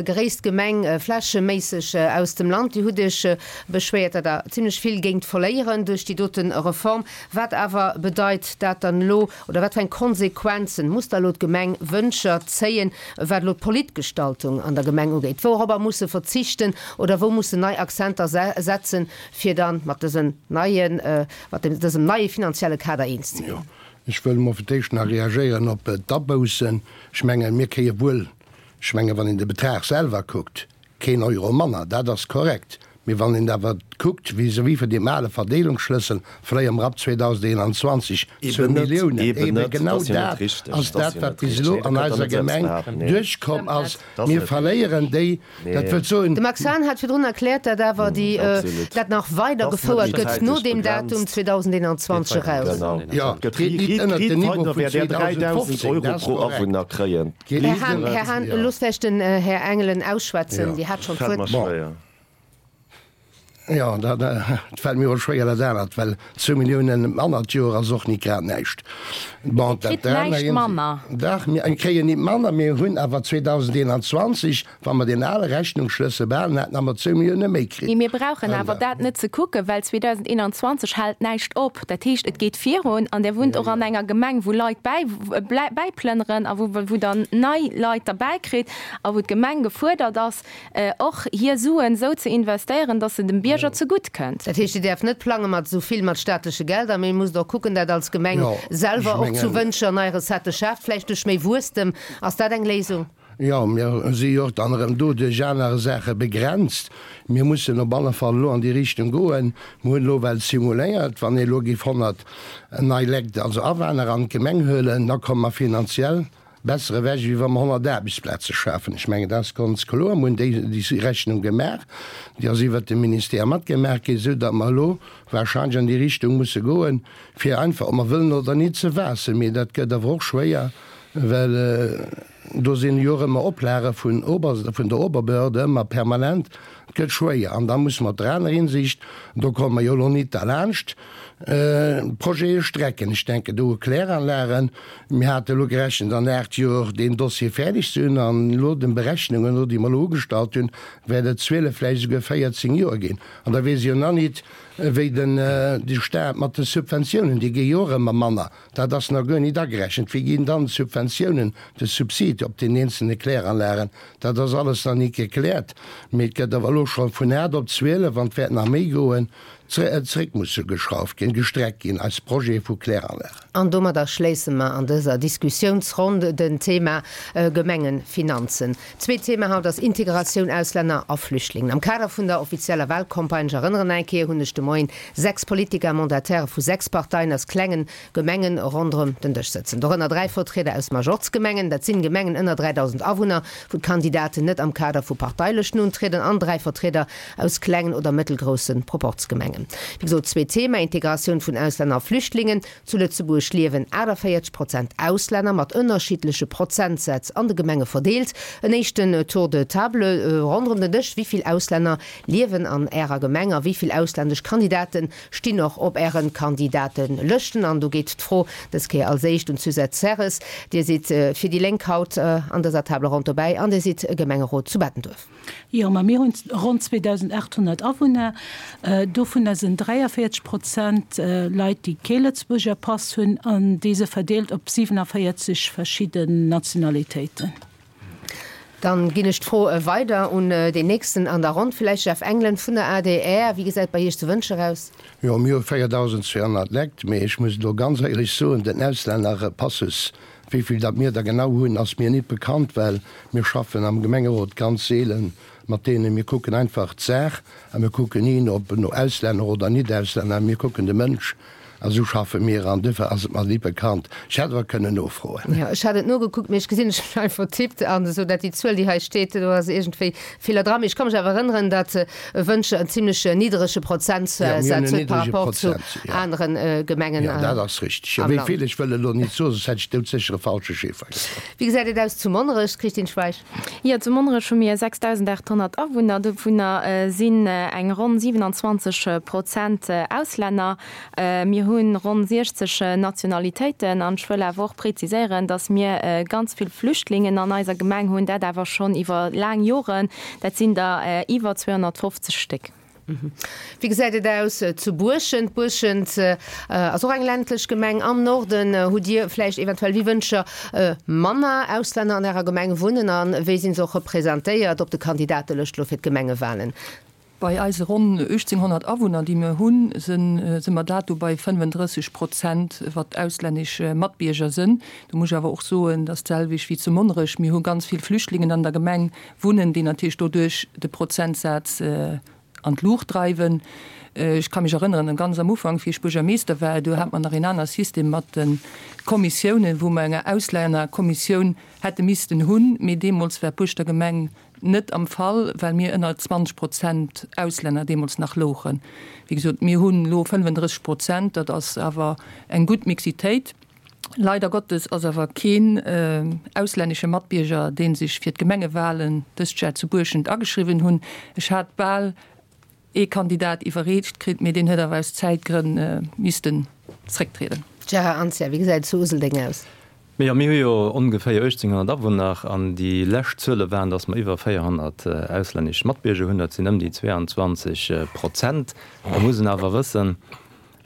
gréisst Gemeng flächeméisseg aus dem Land. Dir hutt Iech beschwéiert, datt Der zimlech vill géingt verléieren duerch déi dote Reform. Wat awer bedeit dat dann elo, oder wat fir eng Konsequenzen muss da elo d'Gemeng Wëntger zéien, wat elo d'Politgestaltung an der Gemeng ugeet? Wouropper muss se verzichten oder wou muss se nei Akzenter setzen, fir da mat dësen neien, mat dësem neie finanzielle Kader eens ze ginn? Ech wëll emol fir d'éischt nach reagéieren op d'Aboussen. Ech mengen, mir kréie wuel, ech mengen, wann een de Betrag selwer kuckt, Keen Euro manner, dat ass korrekt. Mee wann een awer kuckt, vis-à-vis vun deem ale Verdeelungsschlëssel, verléiere mer ab 2021 zwou Milliounen. Eebe genau dat ass dat, wat bis elo an eiser Gemeng duerchkomm ass. Mir verléieren déi. Dat wëllt soen. De Max Hahn hat virdrun erkläert, datt awer déi, dat nach weidergefouert gëtt no deem Datum 2021 eraus. Jo, et geet nit ënnert den Niveau vun 2015, dat ass korrekt. Här Hahn, Här Hahn, loosst vläicht den Här Engelen ausschwätzen, Dir hat schonn d'Wuert. Jo, dat fält mir och schwéier, dat anert, well zwou Milliounen manner d'Joer ass och nit grad näischt. Bon, dat Kritt näischt manner. Dach, mir kréien nit manner, mir hunn awer 2021 Wa mer deen ale Rechnungsschlëssel behalen hätten, hu mer zwou Millioune méi kritt. Mee mir brauchen awer dat net ze kucken, well 2021 hält näischt op. Dat heescht, et geet virun an Der wunnt och an enger Gemeng, wou Leit bäiplënneren a wou Der nei Leit derbäikritt a wou d'Gemeng gefuerdert ass, och hir Suen esou ze investéieren, dass se dem Bierger zegutt kënnt. Dat heescht, Dir däerft net plange mat esou vill mat staatleche Gelder, mee musst och kucken, dat als Gemeng selwer och zu Wëntger nei Recettë schaaft, vläicht duerch méi Wuesstem. Ass dat eng Léisung? Jo, mir si jo och dann erëm do duerch aner Saache begrenzt. Mir mussen op alle Fall elo an déi Richtung goen. Mir hunn elo well simuléiert, wann ee elo géif 100 nei Lekt, also Awaner an d'Gemeng huelen, da komme mer finanziell besser ewech, wéi wa mer 100 Aarbechtsplaze schafen. Ech mengen, dat ass ganz kloer. Mir hunn déi Rechnung gemaach, déi ass iwwert de Ministère matgemaach ginn, esou datt mer elo wahrscheinlech an déi Richtung musse goen, fir einfach, ob mer wëllen oder nit, ze waassen. Mee dat gëtt awer och schwéier, well Do sinn jo och ëmmer Oplage vun Ober, vun der Oberbehörde, ëmmer permanent. Et gëtt schwéier. An da musse mer op der aner Hinsicht, do komme mer jo elo nit derlaanscht, Projete strecken. Ech denken do u Kläranlagen. Mir hate elo gerechent, an 8 Joer deen Dossier fäerdeg ze hunn. An elo den Berechnungen no, déi mer elo ugestallt hunn, wäert et 12, vläicht esouguer 14 Joer ginn. An da weess ech jo nach nit, wéi den, de Stat mat de Subventiounen, déi gi jo och ëmmer manner. Dat ass nach guer nit agerechent. Wéi ginn dann d'Subventiounen, de Subsid op den eenzelne Kläranlagen? Dat ass alles nach nit gekläert. Mee et gëtt awer elo scho vun 8 op 12, an et wäert nach méi goen, zréck musse geschrauft ginn, gestreckt ginn, eis Projete vu Kläranlagen. An domadder schléisse mer an dëser Diskussiounsronn den Thema Gemengefinanzen. Zweet Thema haut ass Integratioun Auslänner a Flüchtlingen. Am Kader vun der offizieller Wahlcampagne, ech erënneren eng Kéier, hunn ech de Moien 6 Politiker a Mandataire vu 6 Parteien aus klengen Gemengen ronderëm den Dësch sëtzen. Dorënner 3 Vertrieder aus Majorz-Gemengen, dat sinn Gemengen ënner 3.000 Awunner, wou d'Kandidaten net am Kader vu Parteilëschten untrieden, an 3 Vertrieder aus klengen oder mëttelgrousse Proporzgemengen. Wéi gesot, zweet Thema, Integratioun vun Auslänner a Flüchtlingen. Zu Lëtzebuerg liewen 48 Prozent Auslänner, mat ënnerschiddleche Prozentsätz an de Gemenge verdeelt. En éischten Tour de table ronderëm den Dësch, Wéi vill Auslänner liewen an Ärer Gemeng a wéi vill auslännesch Kandidate stinn och op Äre Kandidatelëschten? An do geet d'Fro dës Kéier als éischt un d'Suzette Serres. Dir sidd fir déi Lénk haut an dëser Table ronde dobäi an Dir sidd Gemengerot zu Bettenduerf. Jo, ma mir hunn ronn 2.800 Awunner. Dovunner sinn 43 Prozent Leit, déi kee Lëtzebuerger Pass hunn, an déi se verdeelt op 47 verschidden Nationalitéiten. Dann ginn ech d'Fro weider un deen nächsten an der Ronn, villäicht Jeff Engelen vun der adr. Wéi gesäit bei Iech zu Wëntger aus? Jo, mir hu 4.200 Lekt, mee ech muss elo ganz éierlech soen, den Auslännerpassus, wéi vill datt mir der genau hunn, ass mir nit bekannt, well mir schaffen am Gemengerot ganz seelen mat deenen. Mir kucken einfach d'Saach a mir kucken ni ob no Auslänner oder Nit-Auslänner, mir kucken de Mënsch. A sou schaffe mir an duerfir ass et mer nit bekannt. Ech hätt awer kënnen nofroen. Jo, ech hat et nogekuckt, mee ech gesinn, ech hunn einfach vertippt an esou dat déi Zuel, déi hei steet, do ass iergendwéi e Feeler dran. Mee ech ka mech awer erënneren, datt Wëntger en zimlech nidderege Prozentsaz huet par rapport zu anere Gemengen am Land. Jo, dat ass richteg. Jo, wéi vill, ech wëll elo nit soen, soss hätt ech doudsécher e falsche Chiffer gesot. Wéi gesäit et aus zu Monnerech, Christine Schweich? Jo, zu Monnerech hu mir 6.800 Awunner, dovunner sinn eng ronn 27 Prozent Auslänner. Mir hu ronn 60 Nationalitéiten an ech wëll awer och preziséieren, dass mir ganz vill Flüchtlingen an eiser Gemeng hunn, dat awer schonn iwwer laang Joren. Dat sinn der iwwer 250 Stéck. Wéi gesäit et aus zu Buerschent? Buerschent ass och eng ländlech Gemeng am Norden. Hutt Dir vläicht eventuell wéi Wëncher manner Auslänner an Ärer Gemeng wunnen a wéi sinn se och representéiert op de Kandidatelëscht elo fir d'Gemengewalen? Bei eise ronn 1.800 Awunner, déi mir hunn, si mer dato bei 35 Prozent, wat auslännesch Matbierger sinn. Do muss ech awer och soen, dat ass d'selwecht wéi zu Monnerech, mir hu ganz vill Flüchtlingen an der Gemeng wunnen, déi natierlech doduerch de Prozentsaz an d'Luucht dreiwen. Ech ka mech erënneren, ganz am Ufank, wéi ech Buergermeester war, do hat mer nach een aner System mat de Kommissiounen, wou mer eng Auslännerkommissioun hätte missten hunn, mee deemools war d'Buerschter Gemeng Net am Fall, well mir ënner 20 Prozent Auslänner deemools nach louchen. Wéi gesot, mir hunn elo 35 Prozent, dat ass awer eng gutt Mixitéit. Leider Gottes ass awer keen auslännesche Matbierger, dee sech fir d'Gemengewahlen dëst Jar zu Buerschent ageschriwwen hunn. Ech hat bal ee Kandidat iwwerreecht kritt, mee deen huet awer aus Zäitgrënn missten zrécktrieden. Gérard Anzia, Wéi gesäit et zu Useldeng aus? Mee jo, mir hu jo ongeféier 1.800 Awunner an déi lescht Zuele waren, datt mer iwwer 400 auslännesch Matbierger hunn. Dat sinn ëm déi 22 Prozent. Da muss een awer wëssen,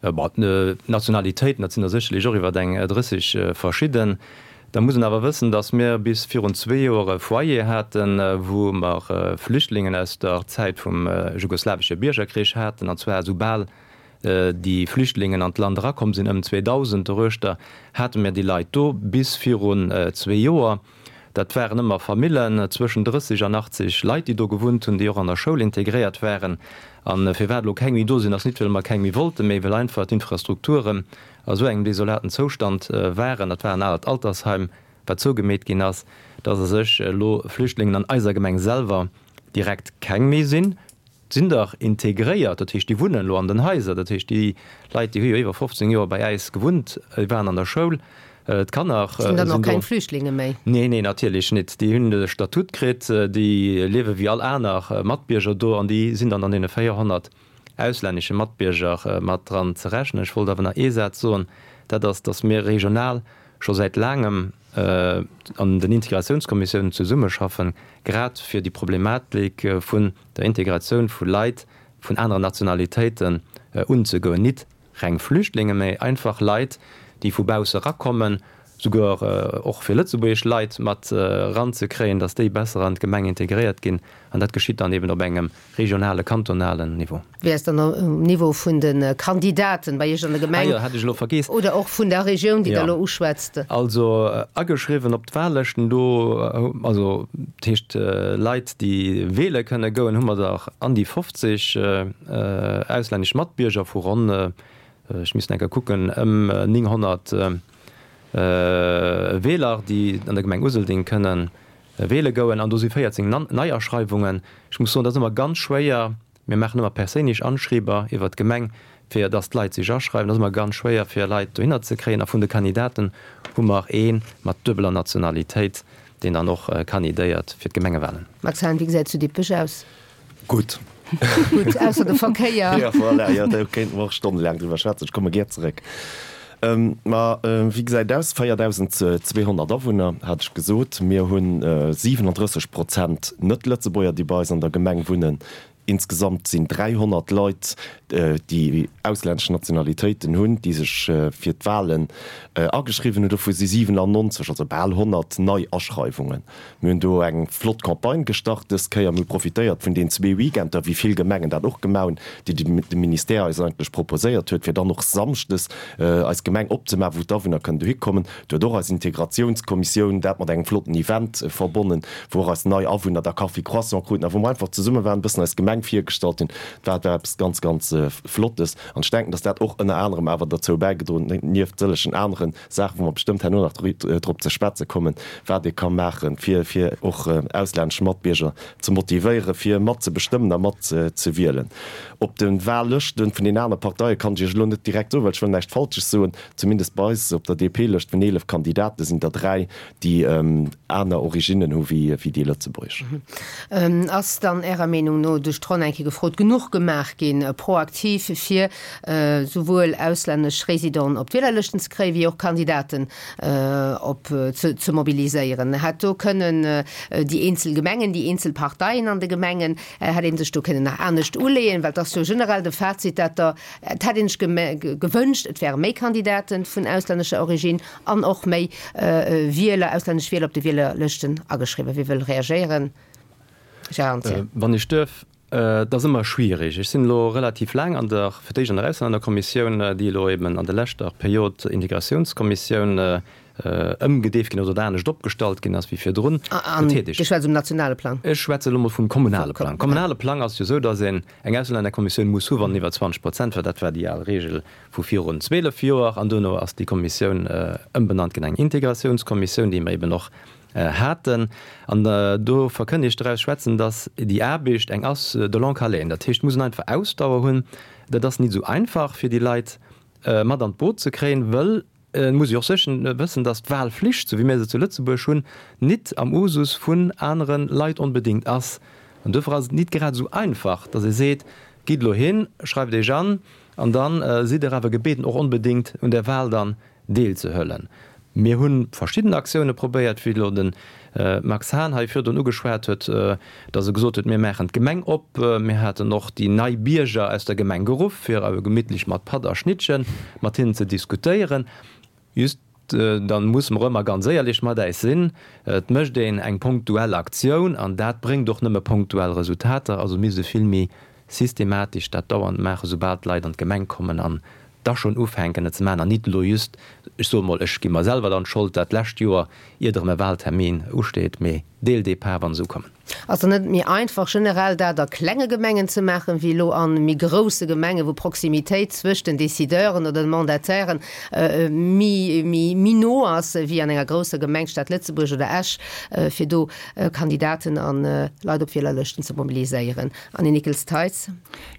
bon, d'Nationalitéiten, dat sinn der sécherlech och iwwer eng 30 verschidden. Da muss een awer wëssen, datt mir bis virun zwee Joer e Foyer haten, wou mer Flüchtlingen aus der Zäit vum jugoslawesche Biergerkrich haten, an zwar esoubal déi Flüchtlingen an d'Land erakomm sinn, ëm 2000 doruechter, hate mir déi Leit do bis virun zwee Joer. Dat waren ëmmer Famillen zwëschen 30 an 80 Leit, déi do gewunnt hunn, déi och an der Schoul integréiert waren. A firwat elo keng méi do sinn, ass nit, well mer keng méi wollten, mee well einfach d'Infrastrukturen a sou engem desolaten Zoustand waren. Dat war en alert Altersheim, wat zougemeet ginn ass, dass a sech elo Flüchtlingen an eiser Gemeng selwer direkt keng méi sinn. Sinn dach integréiert, dat heescht déi wunnen elo an den Haiser, dat heescht déi Leit déi hu jo iwwer 15 Joer bei äis gewunnt, déi waren an der Schoul, d'Kanner sinn do. Sinn dann och keng Flüchtlinge méi? Nee, nee natierlech nit, déi hunn de Statut kritt, déi liewe wéi all aner Matbierger do an déi sinn dann an deene 400 auslännesche Matbierger mat dran ze rechnen. Ech wollt awer nach ee Saz soen, dat ass, datt mir regional scho säit laangem an den Integratiounskommissiounen zesummeschaffen, grad fir déi Problematik vun der Integratioun vu Leit vun aneren Nationalitéiten unzegoen, nit reng Flüchtlinge, mä einfach Leit, déi vu bausse erakommen, souguer och fir lëtzebuergesch Leit mat eranzekréien, datt déi besser an d'Gemeng integréiert ginn. An dat geschitt dann eben op engem regionale, kantonalen Niveau. Wéi ass dann um Niveau vun de Kandidaten bei Iech an der Gemeng? Ah jo, hat ech elo vergeess. Oder och vun der Regioun, déi Der elo uschwätzt? Also ageschriwwen op d'Wahllëschten do, also dat heescht Leit, déi weele kënne goen, hu mer der an déi 50 auslännesch Matbierger vu ronn, ech misst enker kucken, ëm 900 Weeler, déi an der Gemeng Useldeng kënne weele goen. An do si 14 Neiaschreiwungen. Ech muss soen, dat ass ëmmer ganz schwéier. Mir maachen ëmmer perséinlech Anschrieber iwwert d'Gemeng, fir dass d'Leit sech aschreiwen. Dat ass ëmmer ganz schwéier, fir Leit dohinner ze kréien. A vun de Kandidaten hu mer ee mat duebeler Nationalitéit, deen dann och kandidéiert fir d'Gemengewahlen. Max Hahn, Wéi gesäit et zu Dippech aus? Gutt. Gutt, ausser de Verkéier. Jo, voilà, jo, do kéinte mer och stonnelaang driwwer schwätzen. Ech komme gär zeréck. Ma wéi gesäit et aus? 4.200 Awunner, hat ech gesot. Mir hu 37 Prozent Net-Lëtzebuerger, déi bei eis an der Gemeng wunnen. Insgesamt sinn 300 Leit, déi auslännesch Nationalitéiten hunn, déi sech fir d'Wahlen ageschriwwen hunn. Dovu si 97, also bal 100, nei Aschreiwungen. Mir hunn do eng flott Campagne gestart dës Kéier. Mir hu profitéiert vun den zwee Weekender, wéi vill Gemengen dat och gemaach hunn, déi de Ministère eis eigentlech proposéiert huet, fir dann och samschdes eis Gemeng opzemaachen, wou d'Awunner kënnen dohi kommen. Do huet och eis Integratiounskommissioun dat mat engem flotten Event verbonnen, wou och eis nei Awunner da Kaffi, Croissant kruten a wou mer einfach zesumme waren, e bëssen eis Gemeng virgestallt hunn. Dat war eppes ganz, ganz Flottes. An ech denken, dass dat och ënner anerem awer derzou bäigedroen huet, nieft sëllegen anere Saachen, wou mer bestëmmt herno nach drop ze schwätze kommen, wat ee ka maachen, fir fir och auslännesch Matbierger ze motivéieren, fir mat ze bestëmmen a mat ze wielen. Op de Wahllëschte vun den aner Parteie kann ech Iech elo net direkt soen, well ech wëll näischt Falsches soen. Zumindest bei eis op der DP-Lëscht vun 11 Kandidate sinn der 3, déi aner Originnen hu wéi déi lëtzebuergesch. Ass dann Ärer Meenung no, duerch d'Ronn eng Kéier gefrot, genuch gemaach ginn, proaktiv, fir souwuel auslännesch Résidenten op d'Wielerlëschten ze kréien, wéi och Kandidaten op ze mobiliséieren? Hätt do kënnen déi eenzel Gemengen, déi eenzel Parteien an de Gemengen, hätt ee sech do kënnen nach anescht uleeën? Well et ass jo generell de Fazit, dat der, et hätt ee sech gewënscht, et wäre méi Kandidaten vun auslännescher Origine an och méi Wieler, auslännesch Wieler op de Wielerlëschten ageschriwwen. Wie wëll reagéieren? Gérard Anzia. Wann ech duerf, Et ass ëmmer schwierig. Ech sinn elo relativ laang an der, fir d'éischt an der Auslännerkommissioun, déi elo eben an der leschter Period Integratiounskommissioun ëmgedeeft ginn ass oder anescht opgestallt ginn ass wéi virdrun, An tätig. Dir schwätzt um nationale Plang? Ech schwätze elo mol vum kommunale Plang. Kommunale Plang ass jo esou, datt een eng Auslännerkommissioun muss hu wann iwwer 20 Prozent, well dat war déi al Regel vu virun 12 Joer, an duerno ass déi Kommissioun ëmbenannt ginn an eng Integratiounskommissioun, déi mer eben och haten. An do verkënnt ech draus schwätzen, datt déi Aarbecht eng ass de longue haleine. Dat heescht, et muss een einfach Ausdauer hunn. Dat ass nit esou einfach, fir déi Leit mat an d'Boot ze kréien, wëll et muss ee och séchen wëssen, datt d'Wahlflicht, esou wéi mir se zu Lëtzebuerg hunn, nit am Usus vun anere Leit onbedéngt ass. An duerfir ass et nit grad esou einfach, datt ee seet, Gitt elo hin, schreift Iech an, an da sidd Der awer gebeten, och onbedéngt un där Wahl dann deelzehëllen. Mir hu verschidden Aktioune probéiert, wéi elo de Max Hahn hei virdrun ugeschwat huet, datt e gesot huet, mir maachen d'Gemeng op. Mir haten och déi nei Bierger aus der Gemeng geruff, fir awer gemittlech mat Patt a Schnittche mat hinnen ze diskutéieren. Just, da musse mer ëmmer ganz éierlech mat äis sinn, et mécht een eng punktuell Aktioun an dat bréngt och nëmme punktuell Resultater. Also misst e vill méi systematesch dat dauernd maachen, soubal d'Leit an d'Gemeng kommen an da schonn ufänken et ze maachen an nit elo just, ech soe mol, ech gi mer selwer dann d'Schold, dat lescht Joer, iert erëm e Wahltermin usteet, mee dès le départ, wa se ukommen. Ass et net méi einfach generell dat a klenge Gemengen ze maachen, wéi elo a méi grousse Gemengen, wou Proximitéit zwëscht den Décideuren oder den Mandatairen méi, méi no ass, wéi an enger grousser Gemeng, Stad Lëtzebuerg oder Esch, fir do Kandidaten a Leit op Wielerlëschten ze mobiliséieren? Annie Nickels-Theis.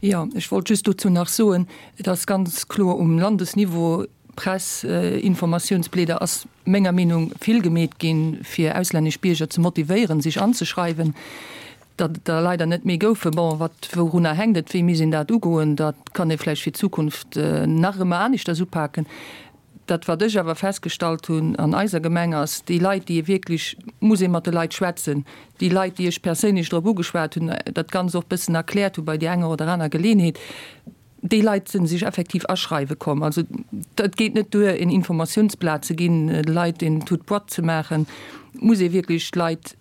Jo, ech wollt just dozou nach soen, et ass ganz kloer um Landesniveau, Press, Informatiounsblieder ass menger Meenung vill gemeet ginn, fir auslännesch Bierger ze motivéieren, sech anzeschreiwen. Datt et der leider net méi goufen, bon, wat, wourunner hänkt et, wéi misst een dat ugoen, dat kann ee vläicht fir d'Zukunft nach ëmmer aneschters upaken. Dat, wat ech awer festgestallt hunn an eiser Gemeng, ass, déi Leit, déi ee wierklech, muss ee mat de Leit schwätzen, déi Leit, déi ech perséinlech drop ugeschwat hunn, dat Ganzt och bëssen erkläert hu bei där enger oder aner Geleeënheet, déi Leit sinn sech effektiv aschreiwe komm. Also et geet net duer, een Informatiounsblat ze ginn, de Leit een toute boîte ze maachen. Et muss ee wierklech d'Leit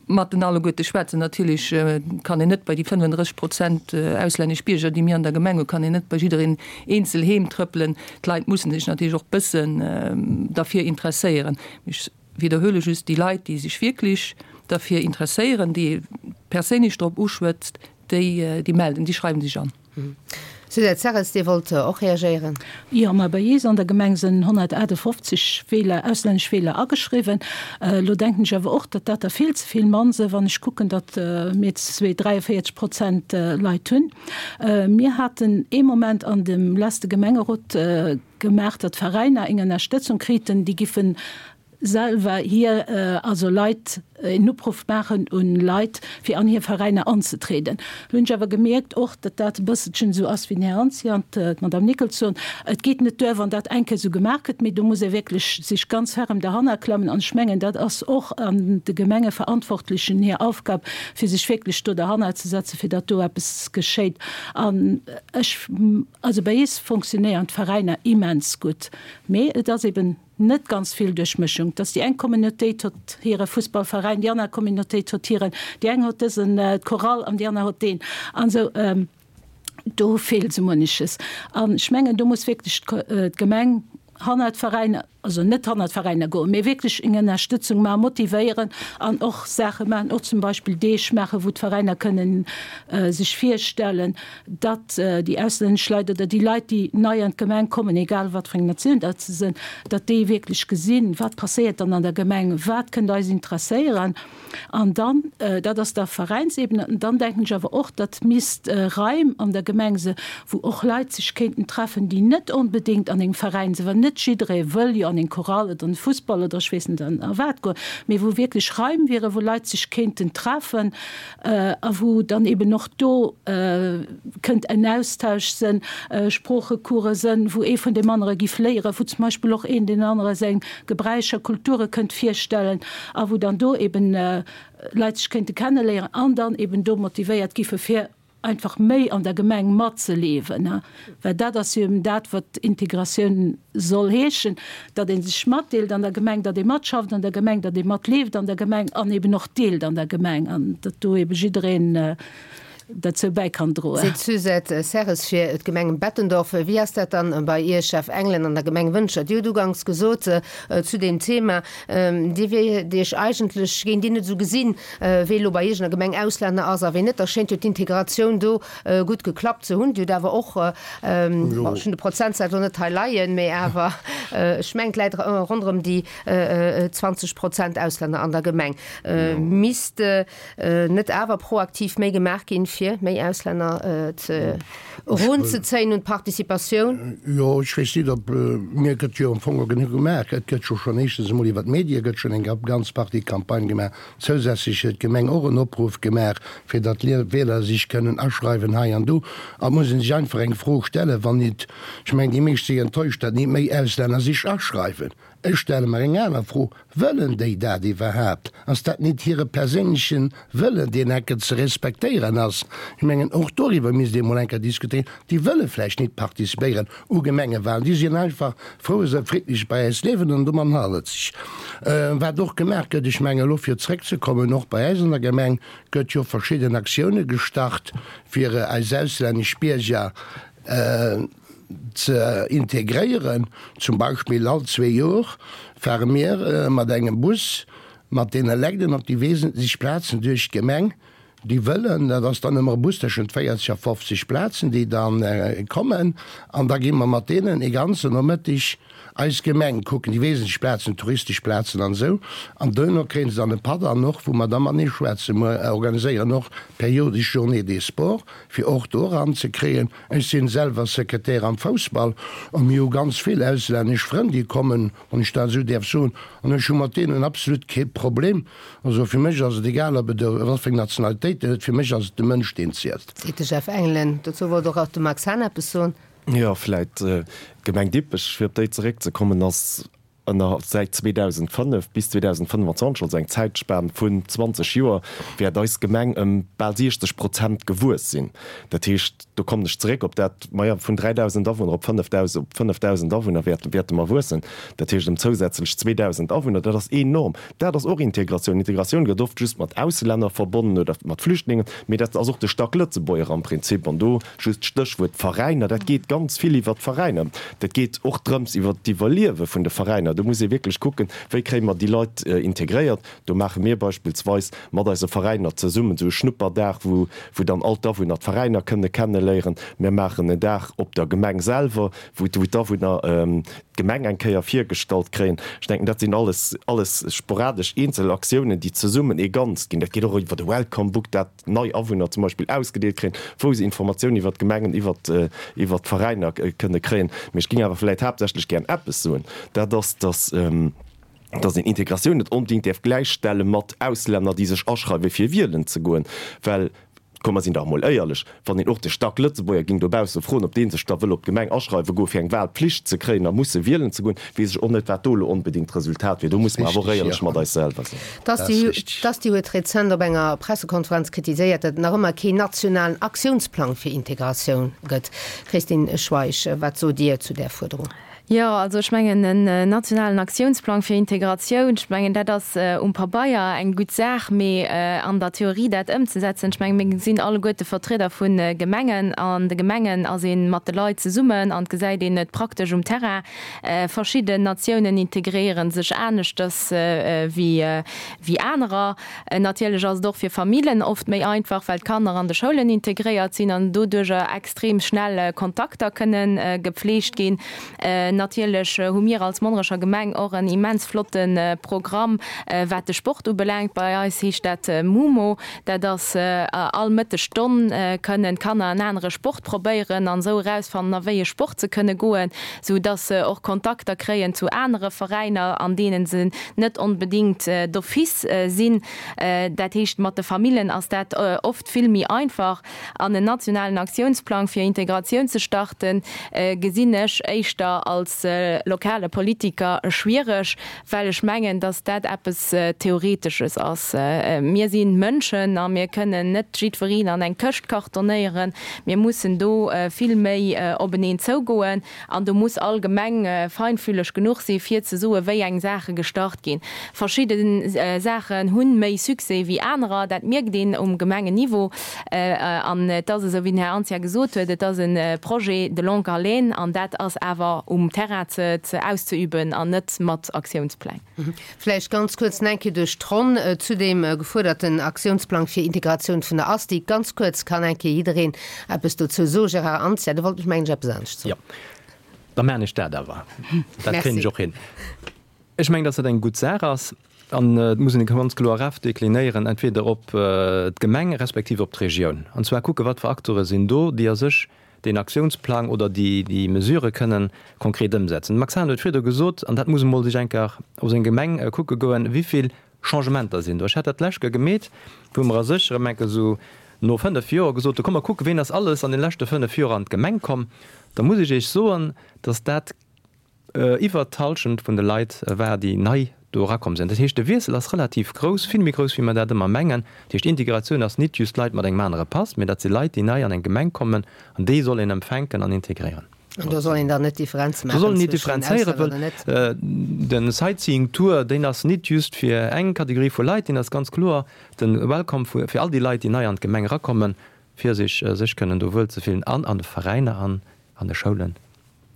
mat den alleguerte schwätzen. Natierlech kann een net bei déi 35 Prozent auslännesch Bierger, déi mir an der Gemeng hunn, kann een net bei jiddereen eenzel heem trëppelen. D'Leit mussen sech natierlech och bëssen derfir interesséieren. Mee ech widderhuele just, déi Leit, déi sech wierklech derfir interesséieren, déi ee perséinlech drop uschwätzt, déi, déi melden, déi schreiwen sech an. Suzette Serres, Dir wollt och reagéieren. Jo, ma bei eis an der Gemeng sinn 158 Wieler, auslännesch Wieler ageschriwwen. Elo denken ech awer och, datt dat der vill ze vill mann sinn, wann ech kucken, datt mir 43 Prozent Leit hunn. Mir haten ee Moment an dem leste Gemengerot gemaach, datt d'Veräiner eng Ënnerstëtzung kriten, déi giffen. selwer hir, also Leit, een Opruff maachen un Leit, fir an hir Veräiner anzetrieden. Lo hunn ech awer gemierkt och, datt dat e bësselchen esou ass wéi den Här Anzia an d'Madame Nickels soen, et geet net duer, wann dat eng Kéier esou gemaach gëtt, mee do muss ee wierklech sech ganz ferrem derhanner klammen. An ech mengen, dat ass och an de Gemengeverantwortlechen hir Aufgab, fir sech wierklech do derhanner ze setzen, fir datt do eppes geschéit. An ech, also bei eis fonctionnéieren d'Veräiner immens gutt, mee et ass eben, Net ganz vill Duerchmëschung, dass déi eng Communautéit hott hire Fussballveräin, déi aner Communautéit hott hiren, déi eng hott dësen Chorale an déi aner hott deen an esou. Do feelt esou munneches. An ech mengen, do muss wierklech d'Gemeng hannert d'Veräiner, also net hannert d'Veräiner goen, mee wierklech eng Ënnerstëtzung maachen, motivéieren an och Saache maachen, och zum Beispill Deeg maachen, wou d'Veräiner kënnen sech virstellen. datt déi auslännesch Leit oder déi Leit, déi nei an d'Gemeng kommen, egal wat fir eng Natioun dat se sinn, datt déi wierklech gesinn, wat passéiert dann an der Gemeng, wat kënnt eis interesséieren. An dann, dat ass da Veräinsebene, an dann denken ech awer och, datt misst Raim an der Gemeng se wou och Leit sech kéinten treffen, déi net onbedéngt an engem Veräin sinn, well net jidderee wëll jo an eng Chorale oder an de Fussball oder ech weess net a wat goen, mee wou wierklech Raim wieren, wou Leit sech kéinten treffen, a wou dann eben och do kënnt en Austausch sënn, Sproochecourse sënn, wou ee vun deem anere giff léieren, wou zum Beispill och een deen anere seng Gebräicher, Kulture kënnt virstellen a wou dann do eben Leit sech kéinte kenneléieren an dann eben do motivéiert giffe fir einfach méi an der Gemeng matzeleven. Well dat ass jo eben dat, wat Integratioun soll heeschen, datt ee sech matdeelt an der Gemeng, datt ee matschafft an der Gemeng, datt ee matleeft an der Gemeng an eben och deelt an der Gemeng an datt do ebe jiddereen derzou bäi kann droen. Seet d'Suzette Serres fir d'Gemeng Bettendorf. Wéi ass dat dann bei Iech, Jeff Engelen, an der Gemeng Wëntger? Dir hutt uganks gesot zu deem Thema, Dir wiert Iech eigentlech, géint Dir net esou gesinn, wee elo bei Iech an der Gemeng Auslänner ass a wee net. Da schéint jo d'Integratioun do gutt geklappt ze hunn. Dir hutt awer och, bon, ech hunn de Prozentsaz elo net hei leien, mee awer ech mengen, et läit ronderëm déi 20 Prozent Auslänner an der Gemeng. Misst net awer proaktiv méi gemaach ginn, fir méi Auslänner ze erunzezéien un d'Participatioun? Jo, ech weess net, ob, mir gëtt jo am Fong och genuch gemaach. Et gëtt jo schonn éischtens emol iwwer d'Medie gëtt schonn eng ganz Partie Campagne gemaach. Zousätzlech huet d'Gemeng och en Opruff gemaach, fir datt d'Wieler sech kënnen aschreiwen hei an do. An et muss ee sech einfach eng Fro stellen, wann nit, ech mengen déi meescht si enttäuscht, datt nit méi Auslänner sech aschreiwen. Ech stelle mer eng aner Fro, Wëllen déi dat iwwerhaapt? Ass dat nit hire perséinleche Wëllen, deen enke ze respektéieren ass? Ech mengen, och doriwwer misst ee mol enker diskutéieren. Déi wëlle vläicht nit participéieren u Gemengewahlen, déi sinn einfach frou, esou friddlech bei äis liewen an domat hal et sech. Wat och gemaach gëtt, ech mengen elo fir zréckzekommen, och bei äis an der Gemeng gëtt jo verschidden Aktioune gestart, fir eis auslännesch Bierger ze integréieren. Zum Beispill all zwee Jor fare mir mat engem Bus mat deene Legden op déi wesentlech Plazen duerch d'Gemeng, déi wëllen. Dat ass dann ëmmer e Bus tëschent 40 a 50 Plazen, déi da kommen. An da gi mer mat deenen e ganzen Nomëttig eis Gemeng kucken, déi wesentlech Plazen, touristesch Plazen an esou. An duerno kréie se dann e Patt an och, wou mer da matenee schwätzen. Mer organiséieren och periodesch Journées des sports, fir och do eran ze kréien. Ech sinn selwer Sekretär am Foussball a mir hu ganz vill auslännesch Frënn, déi kommen, wann ech dat esou däerf soen, an ech hu mat deenen absolut kee Problem. Also fir mech ass et egal, ob et wat fir eng Nationalitéit en huet, fir mech ass et de Mënsch, deen zielt. Seet de Jeff Engelen. Dozou wollt och de Max Hahn eppes soen. Jo, vläit d'Gemeng Dippech, fir op déi zeréckzekommen, ass ënner säit 2005 bis 2025, also eng Zäitspan vun 20 Joer, wäert eis Gemeng ëm bal 60 Prozent gewuess sinn. Dat heescht, do kommen ech zeréck op dat, maja, vun 3.000 Awunner op 5.000, op 5.000 Awunner wäerte, wäerte mer wuessen. Dat heescht ëm zousätzlech 2.000 Awunner. Dat ass enorm. Dat ass och Integratioun. Integratioun gëtt oft just mat Auslänner verbonnen oder mat Flüchtlingen, mee dat ass och de Stack Lëtzebuerger am Prinzip. An do just d'Stéchwuert Veräiner, dat geet ganz vill iwwert d'Veräiner. Dat geet och drëms iwwert d'Iwwerliewe vun de Veräiner. Do muss ee wierklech kucken, wéi kréie mer déi Leit integréiert. Do maache mir beispillsweis mat eise Veräiner zesummen esou e Schnupperdag, wou wou dann all d'Awunner d'Veräiner kënne kenneléieren. Mir maachen en Dag op der Gemeng selwer, wou d'Awunner d'Gemeng eng Kéier virgestallt kréien. Ech denken, dat sinn alles, alles sporadesch eenzel Aktiounen, déi zesummen ee Ganzt ginn. Dat geet och iwwer de Welcome Book, dat nei Awunner zum Beispill ausgedeelt kréien, wou se Informatiounen iwwer d'Gemengen, iwwer, iwwer d'Veräiner kënne kréien. Mee ech géing awer vläicht haaptsächlech gären eppes soen, dat ass, dass. Dass een Integratioun net onbedéngt däerf gläichstelle mat Auslänner, déi sech aschreiwe fir wielen ze goen, well, komm mer sinn dach emol éierlech, wann een och de Stack-Lëtzebuerger géing dobausse froen, ob dee sech da wëll op d'Gemeng aschreiwe goe fir eng Wahlpflicht ze kréien a musse wielen ze goen, weess ech och net, wat do elo onbedéngt d'Resultat wier. Do musse mer awer och éierlech mat eis selwer sinn. D'Asti huet rezent op enger Pressekonferenz kritiséiert, datt et nach ëmmer keen nationalen Aktiounsplang fir Integratioun gëtt. Christine Schweich, wat sot Dir zu där Fuerderung? Jo, also ech mengen en nationalen Aktiounsplang fir Integratioun, ech mengen dat ass um Pabeier eng gutt Saach, mee an der Theorie dat ëmzesetzen, ech mengen mir sinn alleguerte Vertrieder vu Gemengen, an de Gemengen ass ee mat de Leit zesummen an et gesäit een et praktesch um Terrain. Verschidden Natiounen integréiere sech aneschters wéi anerer. Natierlech ass et och fir Famillen oft méi einfach, well d'Kanner an de Schoulen integréiert sinn an doduerjer extrem schnell Kontakter kënne gepflegt ginn. Natierlech hu mir als Monnerecher Gemeng och en immens flotte Programm, wat de Sport ubelaangt. Bei eis heescht dat MUMO. Dat ass all Mëttesstonn kënnen d'Kanner en anere Sport probéieren an esou erausfannen, a wéi e Sport se kënne goen, sou dass se och Kontakter kréien zu anere Veräiner, an deene se net onbedéngt d'office sinn. Dat heescht, mat de Famillen ass dat oft vill méi einfach. An en nationalen Aktiounsplang fir Integratioun ze starten, gesinn ech éischter als lokale Politiker schwiereg, well ech mengen, datt dat eppes Theoretesches ass. Mir si Mënschen a mir kënnen net jiddwereen an eng Këscht kartonéieren. Mir mussen do vill méi openeen zougoen. An do muss all Gemeng feinfühleg genuch si fir ze soen, wéi eng Saache gestart ginn. Verschidde Saachen hu méi Succès wéi anerer, dat mierkt een um Gemengenniveau. An et ass esou, wéi den Här Anzia gesot huet, et ass e Projet de longue haleine an dat ass awer um Terrain ze auszeüben an net mat Aktiounspläng. Vläicht ganz kuerz nach eng Kéier duerch d'Ronn zu deem gefuerderten Aktiounsplang fir Integratioun vun der Asti. Ganz kuerz kann eng Kéier jiddereen eppes dozou soen. Gérard Anzia, Du wollt mech mengen ech eppes anescht soen. Jo, da maachen ech dat awer. Dat kréien ech och hin. Ech mengen, dass dat eng gutt Saach ass an et muss een e ganz kloer Ref deklinéieren, entweder op d'Gemeng respektiv op d'Regioun. An zwar kucken, wat fir Acteure sinn do, déi a sech deen Aktiounsplang oder déi, déi Mesurë kënnen konkret ëmsetzen. De Max Hahn huet virdu gesot, an dat muss emol sech eng Kéier op seng Gemeng kucke goen, wéivill Changementer sinn do. Ech hat dat d'lescht Kéier gemeet, wou mer a sech erëm eng Kéier esou no 5 Joer gesot hu, komm mer kucken, ween ass alles an de leschte 5 Joer an d'Gemeng komm. Da muss ech Iech soen, dass dat Iwwert d'Hallschent vun de Leit war, déi nei do erakomm sinn. Dat heescht, de Wiessel ass relativ grouss, vill méi grouss, wéi mer dat ëmmer mengen. Dat heescht, Integratioun ass nit just Leit mat engem anere Pass, mee dat si Leit, déi nei an eng Gemeng kommen an déi soll een empfänken an integréieren. An do soll een dann net Differenze maachen zwëschen Auslänner oder net? De Sightseeing Tour, deen ass nit just fir eng Kategorie vu Leit, deen ass ganz kloer de Welcome fir all déi Leit, déi nei an d'Gemeng erakommen, fir sech sech kënnen do wuelzefillen an an de Veräiner an an de Schoulen.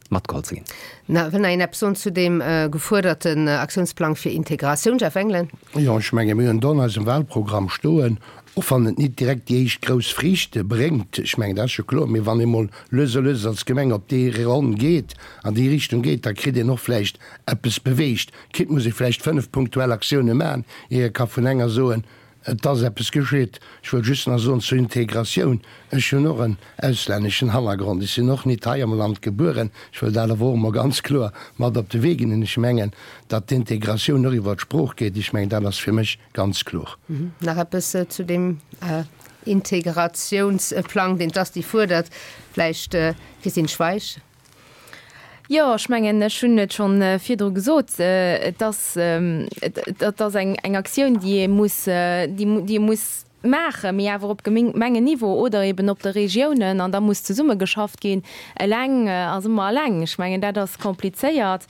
Matgeholl ze ginn. Na, wëll nach een eppes soen zu deem gefuerderten Aktiounsplang fir Integratioun? Jeff Engelen. Jo, ech menge mir hunn do an eisem Wahlprogramm stoen, och wann et nit direkt déi éischt grouss Friichte bréngt, ech mengen dat ass jo kloer, mee wann ee mol lues a lues als Gemeng op déi Ronn geet, an déi Richtung geet, da kritt een och vläicht eppes beweegt. Quitte muss ee vläicht 5 punktuell Aktioune maachen, ier ee ka vun enger soen, Et ass eppes geschitt. Ech wëll just nach soen zur Integratioun, Ech hunn och en auslänneschen Hannergrond. Ech sinn och nit hei am Land gebueren. Ech wëll dat awer och emol ganz kloer mat op de Wee ginn. An ech mengen, datt d'Integratioun och iwwert d'Sprooch geet. Ech mengen, dat ass fir mech ganz kloer. Nach eppes zu deem Integrationsplang, deen d'Asti fuerdert, vläicht, Christine Schweich? Jo, ech mengen, ech hunn et schonn virdru gesot, et ass, et ass eng Aktioun, déi ee muss, déi ee muss maachen, mee awer op Gemengenniveau oder eben op de Regiounen, an da muss zesummegeschafft ginn. Eleng ass ëmmer eleng. Ech mengen, dat ass komplizéiert,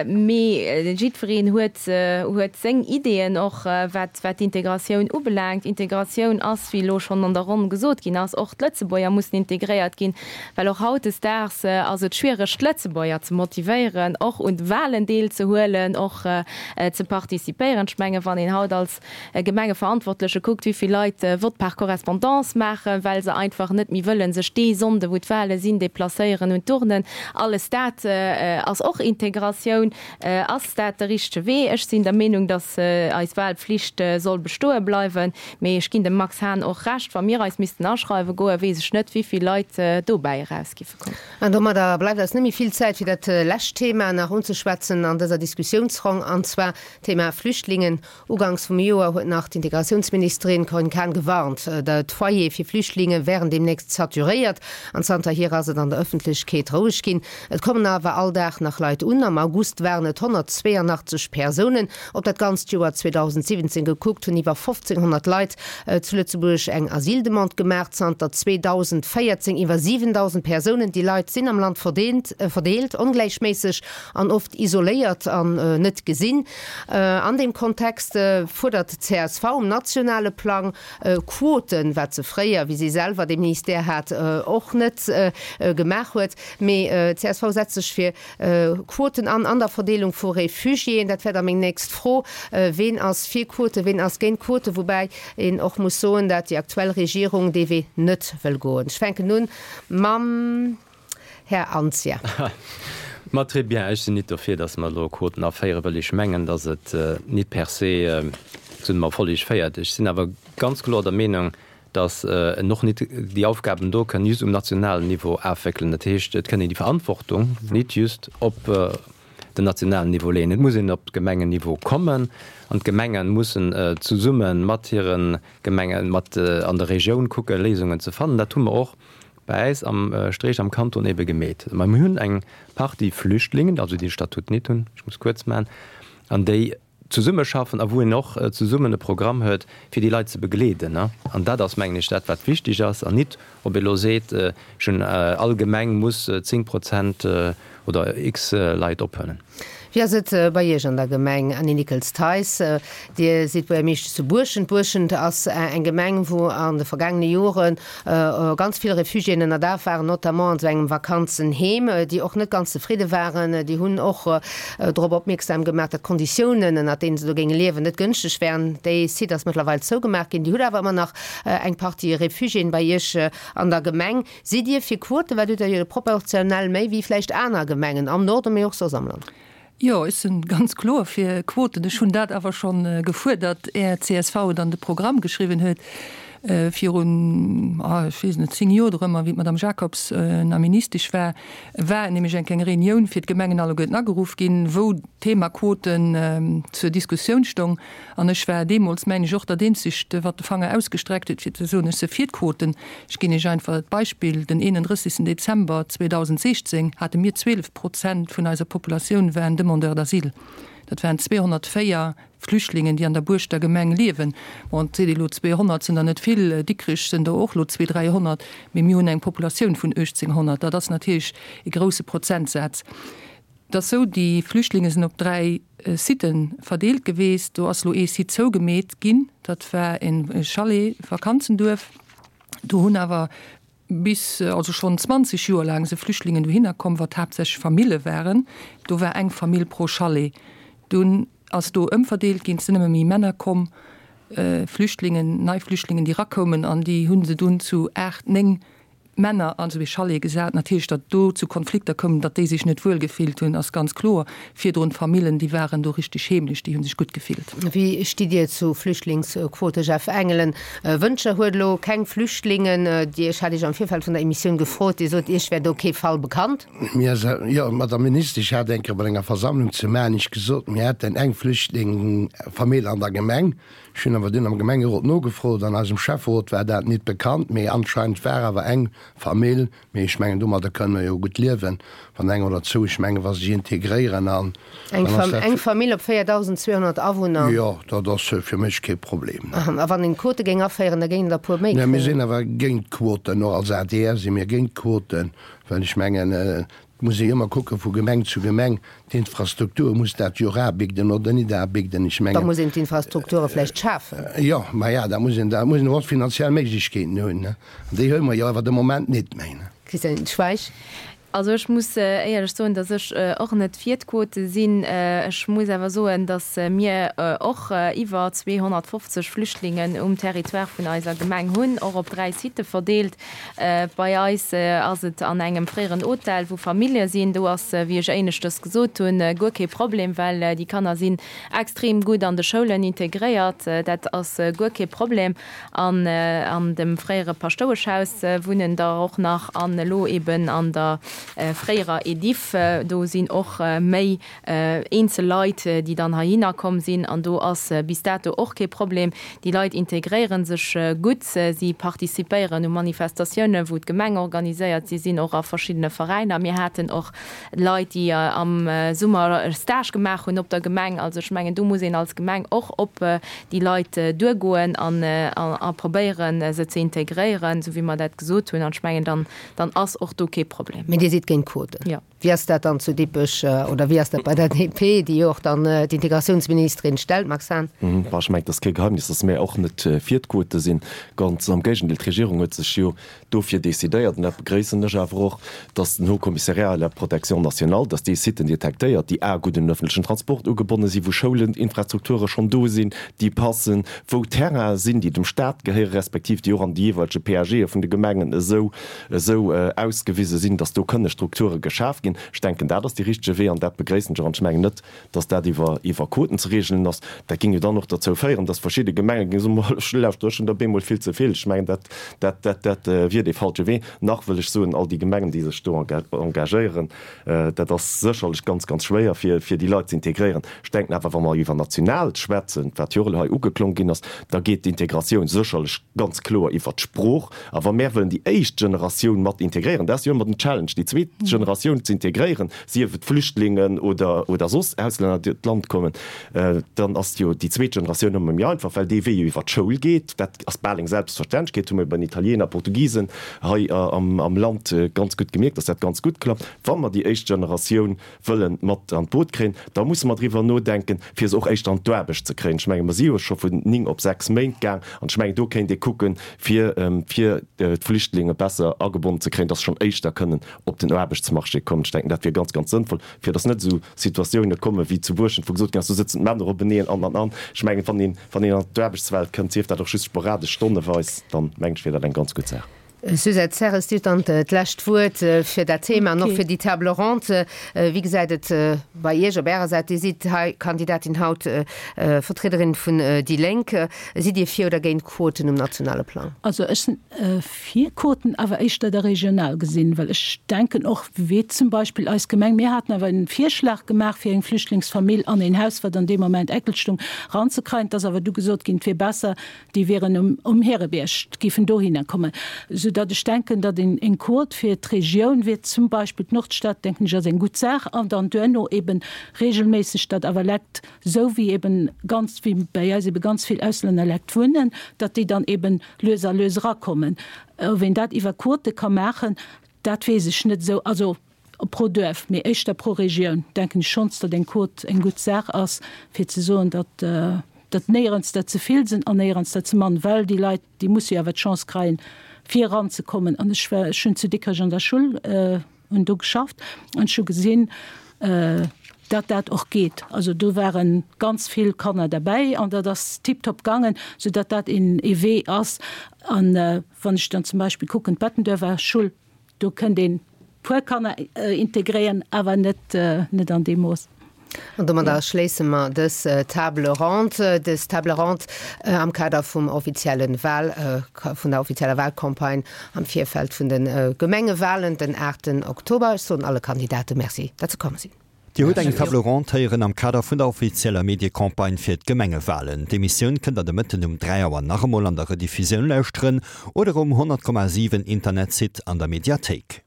mee jiddwereen huet, huet seng Ideeën och, wat, wat d'Integratioun ubelaangt. Integratioun ass, wéi elo schonn an der Ronn gesot ginn ass, och d'Lëtzebuerger mussen integréiert ginn. Well och hautdesdaags ass et schwiereg d'Lëtzebuerger ze motivéieren, och un de Wahlen deelzehuelen, och ze participéieren. Ech mengen, wann een haut als Gemengeverantwortleche kuckt, wéi. vill Leit Vote par correspondance maachen, well se einfach net méi wëllen sech dee Sonnde wou d'Wahle sinn, deplacéieren un d'Urnen. Alles dat ass och Integratioun. Ass dat de richtege Wee? Ech sinn der Meenung, datt eis Wahlpflicht soll bestoe bleiwen. Mee ech ginn dem Max Hahn och Recht, wa mir eis missten aschreiwe goen, weess ech net, wéi vill Leit dobäi eraus giffe kommen. An domadder bleift eis net méi vill Zäit, fir dat lescht Thema nach unzeschwätzen an dëser Diskussiounsronn, an zwar d'Thema Flüchtlingen. Uganks vum Joer huet nach d'Integratiounsministerin Corinne Cahen gewarnt, d'Foyere fir Flüchtlinge wären deemnächst saturéiert. An zanterhier ass et an der Ëffentlechkeet roueg ginn. Et kommen awer all Dag nach Leit un. Am August waren et 182 Persounen. Op dat ganzt Joer 2017 gekuckt, hunn iwwer 1.500 Leit zu Lëtzebuerg eng Asyldemande gemaach. Zanter 2014 iwwer 7.000 Persounen. Déi Leit sinn am Land verdeelt, ongläichméisseg an oft isoléiert an net gesinn. An deem Kontext fuerdert d'CSV um nationale Plang Quoten, wat se fréier, wéi si selwer dee Ministère hat, och net gemaach huet. Mee d'CSV setzt sech fir Quoten an an der Verdeelung vu Refugiéen. Dat wär da meng nächst Fro, Ween ass fir Quoten, ween ass géint Quoten? Woubäi een och muss soen, dat déi aktuell Regierung dee Wee net wëll goen. Ech fänken un mam. Här Anzia. Ma très bien, ech sinn nit dofir, datt mer elo Quoten aféieren, wëll ech mengen, datt et nit per se zu engem Erfolleg féiert. Ech sinn awer ganz kloer der Meenung, datt en och nit déi Aufgaben do kënn just um nationalen Niveau afwéckelen. Dat heescht, et kënn een déi Verantwortung nit just op den nationalen Niveau leeën. Et muss een op Gemengenniveau kommen an d'Gemenge mussen zesumme mat hire Gemengen, mat an der Regioun kucken, Léisungen ze fannen. Dat hu mer och Bei äis am Streech am Kanton ebe gemeet. Mä mir hunn eng Partie Flüchtlingen, also déi de Statut nit hunn, ech muss kuerz maachen, an déi zesummeschaffen a wou een och zesummen e Programm huet, fir déi Leit ze begleeden. An dat ass, mengen ech, dat wat wichtig ass, an nit ob ee elo seet, ech hunn, all Gemeng muss 10 Prozent oder x Leit ophuelen. Wéi ass et bei Iech an der Gemeng, Annie Nickels-Theis? Dir sidd Buergermeeschtesch zu Buerschent. Buerschent ass eng Gemeng, wou an de vergaangene Jore ganz vill Refugiéen ënnerdaach waren, notamment an esou engem Vakanzenheem, déi och net ganz zefridde waren. Déi hunn och drop opmierksam gemaach, datt d'Konditiounen, ënnert deene se do géinge liewen, net gënschteg wären. Dee Site ass mëttlerweil zougemaach ginn. Dir hutt awer ëmmer nach eng Partie Refugiéen bei Iech an der Gemeng. Sidd Dir fir Quoten? Well hutt Der jo proportionell méi wéi vläicht aner Gemengen am Norden, mee och soss am Land. Jo, ech sinn ganz kloer fir Quoten. Ech hunn dat awer scho gefuerdert, är csv et an de Programm geschriwwen huet, virun, ech weess net, 10 Joer dorëmmer, wéi d'Madame Jacobs nach Ministesch war, war nämlech eng kleng Reunioun fir d'Gemengen alleguerten ageruff ginn, wou d'Thema Quoten zur Diskussioun stong. An ech war deemools, mengen ech, och dat Eenzegt, wat de Fanger ausgestreckt huet, fir ze soen, ech se fir d'Quoten. Ech ginn Iech einfach d'Beispill, Den 31. Dezember 2016 hate mir 12 Prozent vun eiser Populatioun waren Demandeurs d'asile. Dat waren 204 Flüchtlingen, déi an der Buerschter Gemeng liewen. Bon, et seet ee lo, 200 sinn der net vill, Dikrech sinn der och lo zwee, 300, mee mir hunn eng Populatioun vun 1.800. Dat ass natierlech e grouse Prozentsaz. Et ass sou, déi Flüchtlinge sinn op 3 Siten verdeelt geweest. Do ass lo ee Site zougemeet ginn, dat war e Chalet, Vakanzenduerf. Do hunn awer bis, also schonn 20 Joer laang se Flüchtlingen dohinner komm, wat haaptsächlech Famille waren. Do war eng Famill pro Chalet. Dunn ass do ëmverdeelt ginn, et sinn ëmmer méi Männer komm, Flüchtlingen, nei Flüchtlingen, déi rakoumen an déi hu se dunn zu 8, 9 Männer an esou ee Chalet gesat. Natierlech, datt do zu Konflikter koum, datt déi sech net wuel gefillt hunn, ass ganz kloer. Virdrun d'Famillen, déi waren do richteg heemlech, déi hu sech gutt gefillt. Wéi stitt Dir zu Flüchtlingsquote, Jeff Engelen? Wëntger huet elo keng Flüchtlingen. Dir, ech hat Iech am Virfeld vun der Emissioun gefrot, Dir sot, Iech wär do kee Fall bekannt. Mir, jo, Madame Ministesch hat eng Kéier bei enger Versammlung zu Maarnech gesot, mir hätten eng Flüchtlingfamill an der Gemeng. Ech hunn awer dunn am Gemengerot nogefrot, an eisem Schäfferot war dat nit bekannt, mee anscheinend war awer eng Famill, mee ech mengen domadder kënnen mer jo gutt liewen, wann eng oder zwou, ech mengen wa se sech integréieren an dann ass dat. Eng Famill op 4.200 Awunner. Jo, dat ass fir mech kee Problem. A wann een Quote géing aféieren, da géingen der e puer méi kréien. Mir sinn awer géint d'Quoten, och als adr si mir géint d'Quoten, well ech mengen, Et muss ee ëmmer kucke vu Gemeng zu Gemeng, d'Infrastruktur muss dat jo och abigden oder nit abigden. Ech mengen. Da muss een d'Infrastrukture vläicht schafen. Jo, ma ja, da muss een, da muss een och finanziell Méiglechkeeten hunn, ne? An déi hu mer jo awer de Moment nit méi, ne? Christiane Schweich. Also ech muss éierlech soen, datt ech och net fir d'Quote sinn. Ech muss awer soen, datt mir och iwwer 250 Flüchtlingen um Territoire vun eiser Gemeng hunn, och op 3 Sitë verdeelt. Bei eis ass et an engem fréieren Hotel, wou Famillje sinn. Do ass, wéi ech éineschters gesot hunn, guer kee Problem, well déi Kanner sinn extrem gutt an de Schoulen integréiert. Dat ass guer kee Problem. An an dem fréiere Paschtoueschhaus wunnen der och nach an elo eben an der fréierer Ediff. Do sinn och méi eenzel Leit, déi dann heihinner komm sinn an do ass bis dato och kee Problem. Déi Leit integréiere sech gutt, si participéieren u Manifestatiounen, wou d'Gemeng organiséiert, si sinn och a verschiddene Veräiner. Mir haten och Leit, déi am Summer e Stage gemaach hunn op der Gemeng. Also ech mengen, do muss een als Gemeng och op déi Leit duergoen an a probéieren, se ze integréieren, esou wéi mer dat gesot hunn. An ech mengen, dann, dann ass och do kee Problem. Mee Dir sidd géint Quoten. Jo. Wéi ass dat dann zu Dippech oder wéi ass dat bei der DP, déi jo och dann d'Integratiounsministerin stellt, Max Hahn? Bon, ech mengen, et ass kee Geheimnis, datt mär och net fir d'Quote sinn. Ganz am Géigendeel, d'Regierung huet sech jo dofir decidéiert, an dat begréissen ech awer och, dass den Haut Commissariat à la protection nationale, dass dee Siten detektéiert, déi a gutt un den öffentlechen Transport ugebonne sinn, wou Schoulen, Infrastrukture schonn do sinn, déi passen, wou Terrainen sinn, déi dem Stat gehéieren, respektiv déi och an de jeeweilege PAGe vun de Gemengen esou esou ausgewise sinn, dass do kënne Strukture geschaf ginn. Ech denken, dat ass dee richtege Wee an dat begréissen ech och. An ech mengen net, dass dat iwwer iwwer Quoten ze regelen ass, dat géing jo dann och derzou féieren, dass verschidde Gemenge géinge soen, Ma lauschter, ech hunn der bemol vill ze vill. Ech mengen, dat dat dat dat wier dee falsche Wee. Nach wëll ech soen, all déi Gemengen, déi sech do engagéieren, dat ass sécherlech ganz, ganz schwéier, fir fir déi Leit ze integréieren. Ech denken awer, wa mer iwwer national schwätzen, wat jo och elo hei ugeklong ginn ass, da geet d'Integratioun sécherlech ganz kloer iwwer d'Sprooch. A wa mär wëllen déi éischt Generatioun mat integréieren, dat ass jo ëmmer den Challenge, déi zweet Generatioun ze integréieren, sief et Flüchtlingen oder, oder soss Auslänner, déi d'Land kommen, dann ass jo déi zweet Generatioun ëmmer méi einfach, well dee Wee jo iwwer d'Schoul geet. Dat ass bal eng Selbstverständlechkeet, hu mir bei den Italiener, Portugisen hei am, am Land ganz gutt gemierkt, dass dat ganz gutt klappt. Wa mer déi éischt Generatioun wëlle mat an d'Boot kréien, da musse mer driwwer nodenken, fir se och éischter an d'Aarbecht ze kréien. Ech menge mer si jo scho vun 9 op 6 Méint gaang an ech mengen do kéint ee kucken, fir fir d'Flüchtlinge besser agebonnen ze kréien, dass se schonn éischter kënnen op den Aarbechtsmarché kommen. Ech denken dat wier ganz, ganz sënnvoll, fir dass net esou Situatioune komme wéi zu Buerschent, wou gesot ginn ass, do sëtzen d'Männer openeen an an an. Ech mengen, wann een wann een an d'Aarbechtswelt kënnt, sief dat och just sporadesch, stonneweis, dann mengen ech wier dat eng ganz gutt Saach. Suzette Serres, Dir hutt dann d'lescht Wuert fir dat Thema an och fir déi Table ronde. Wéi gesäit et bei Iech op Ärer Säit? Dir sidd hei Kandidatin haut, Vertriederin vun déi Lénk. Sidd Dir fir oder géint Quoten um nationale Plang? Also ech sinn fir Quoten, awer éischter da regional gesinn, well ech denken och, wéi zum Beispill eis Gemeng, mir haten awer en Virschlag gemaach fir eng Flüchtlingsfamill an een Haus, wat an deem Moment eckel stung, eranzekreien. Et ass awer du gesot ginn, et wier besser, déi wieren um, um Härebierg, géifen dohinner kommen, soudatt ech denken, datt een eng Quot fir d'Regioun wier, zum Beispill d'Nordstad, denken ech, ass eng gutt Saach, an dann duerno eben regelméisseg, datt awer Lekt, esou wéi eben ganz, wéi bäi eis ebe ganz vill Auslännerlekt wunnen, datt déi dann eben lues a lues erakommen. Ob een dat iwwer Quote ka maachen, dat weess ech net esou. Also pro Duerf, mee éischter pro Regioun, denken ech schonns, datt eng Quot eng gutt Saach ass, fir ze soen, datt datt néierens der ze vill sinn an néierens der ze mann, well déi Leit, déi musse jo awer d'Chance kreien, fir eranzekommen. An ech war, ech hunn zu Dikrech an der Schull, hunn do geschafft an ech hu gesinn, datt dat och geet. Also do ware ganz vill Kanner derbäi an dat ass tiptop gaangen, soudatt dat een ee Wee ass. An wann ech dann zum Beispill kucken, d'Bettenduerfer Schull, Do kënnt een puer Kanner integréieren, awer net net an deem Mooss. An domadder schléisse mer dës Table ronde, dës Table ronde am Kader vum offizielle Wahl, vun der offizieller Wahlcampagne am Virfeld vun de Gemengewahlen den 8 Oktober. Ech soen alle Kandidate Merci, datt se komm sinn. Dir hutt eng Table ronde héieren am Kader vun der offizieller Mediecampagne fir d'Gemengewalen. D'Emissioun kënnt der de Mëtten um 3 Auer nach emol an der Rediffusioun lauschteren oder um 100,7 Internetsite an der Mediathéik.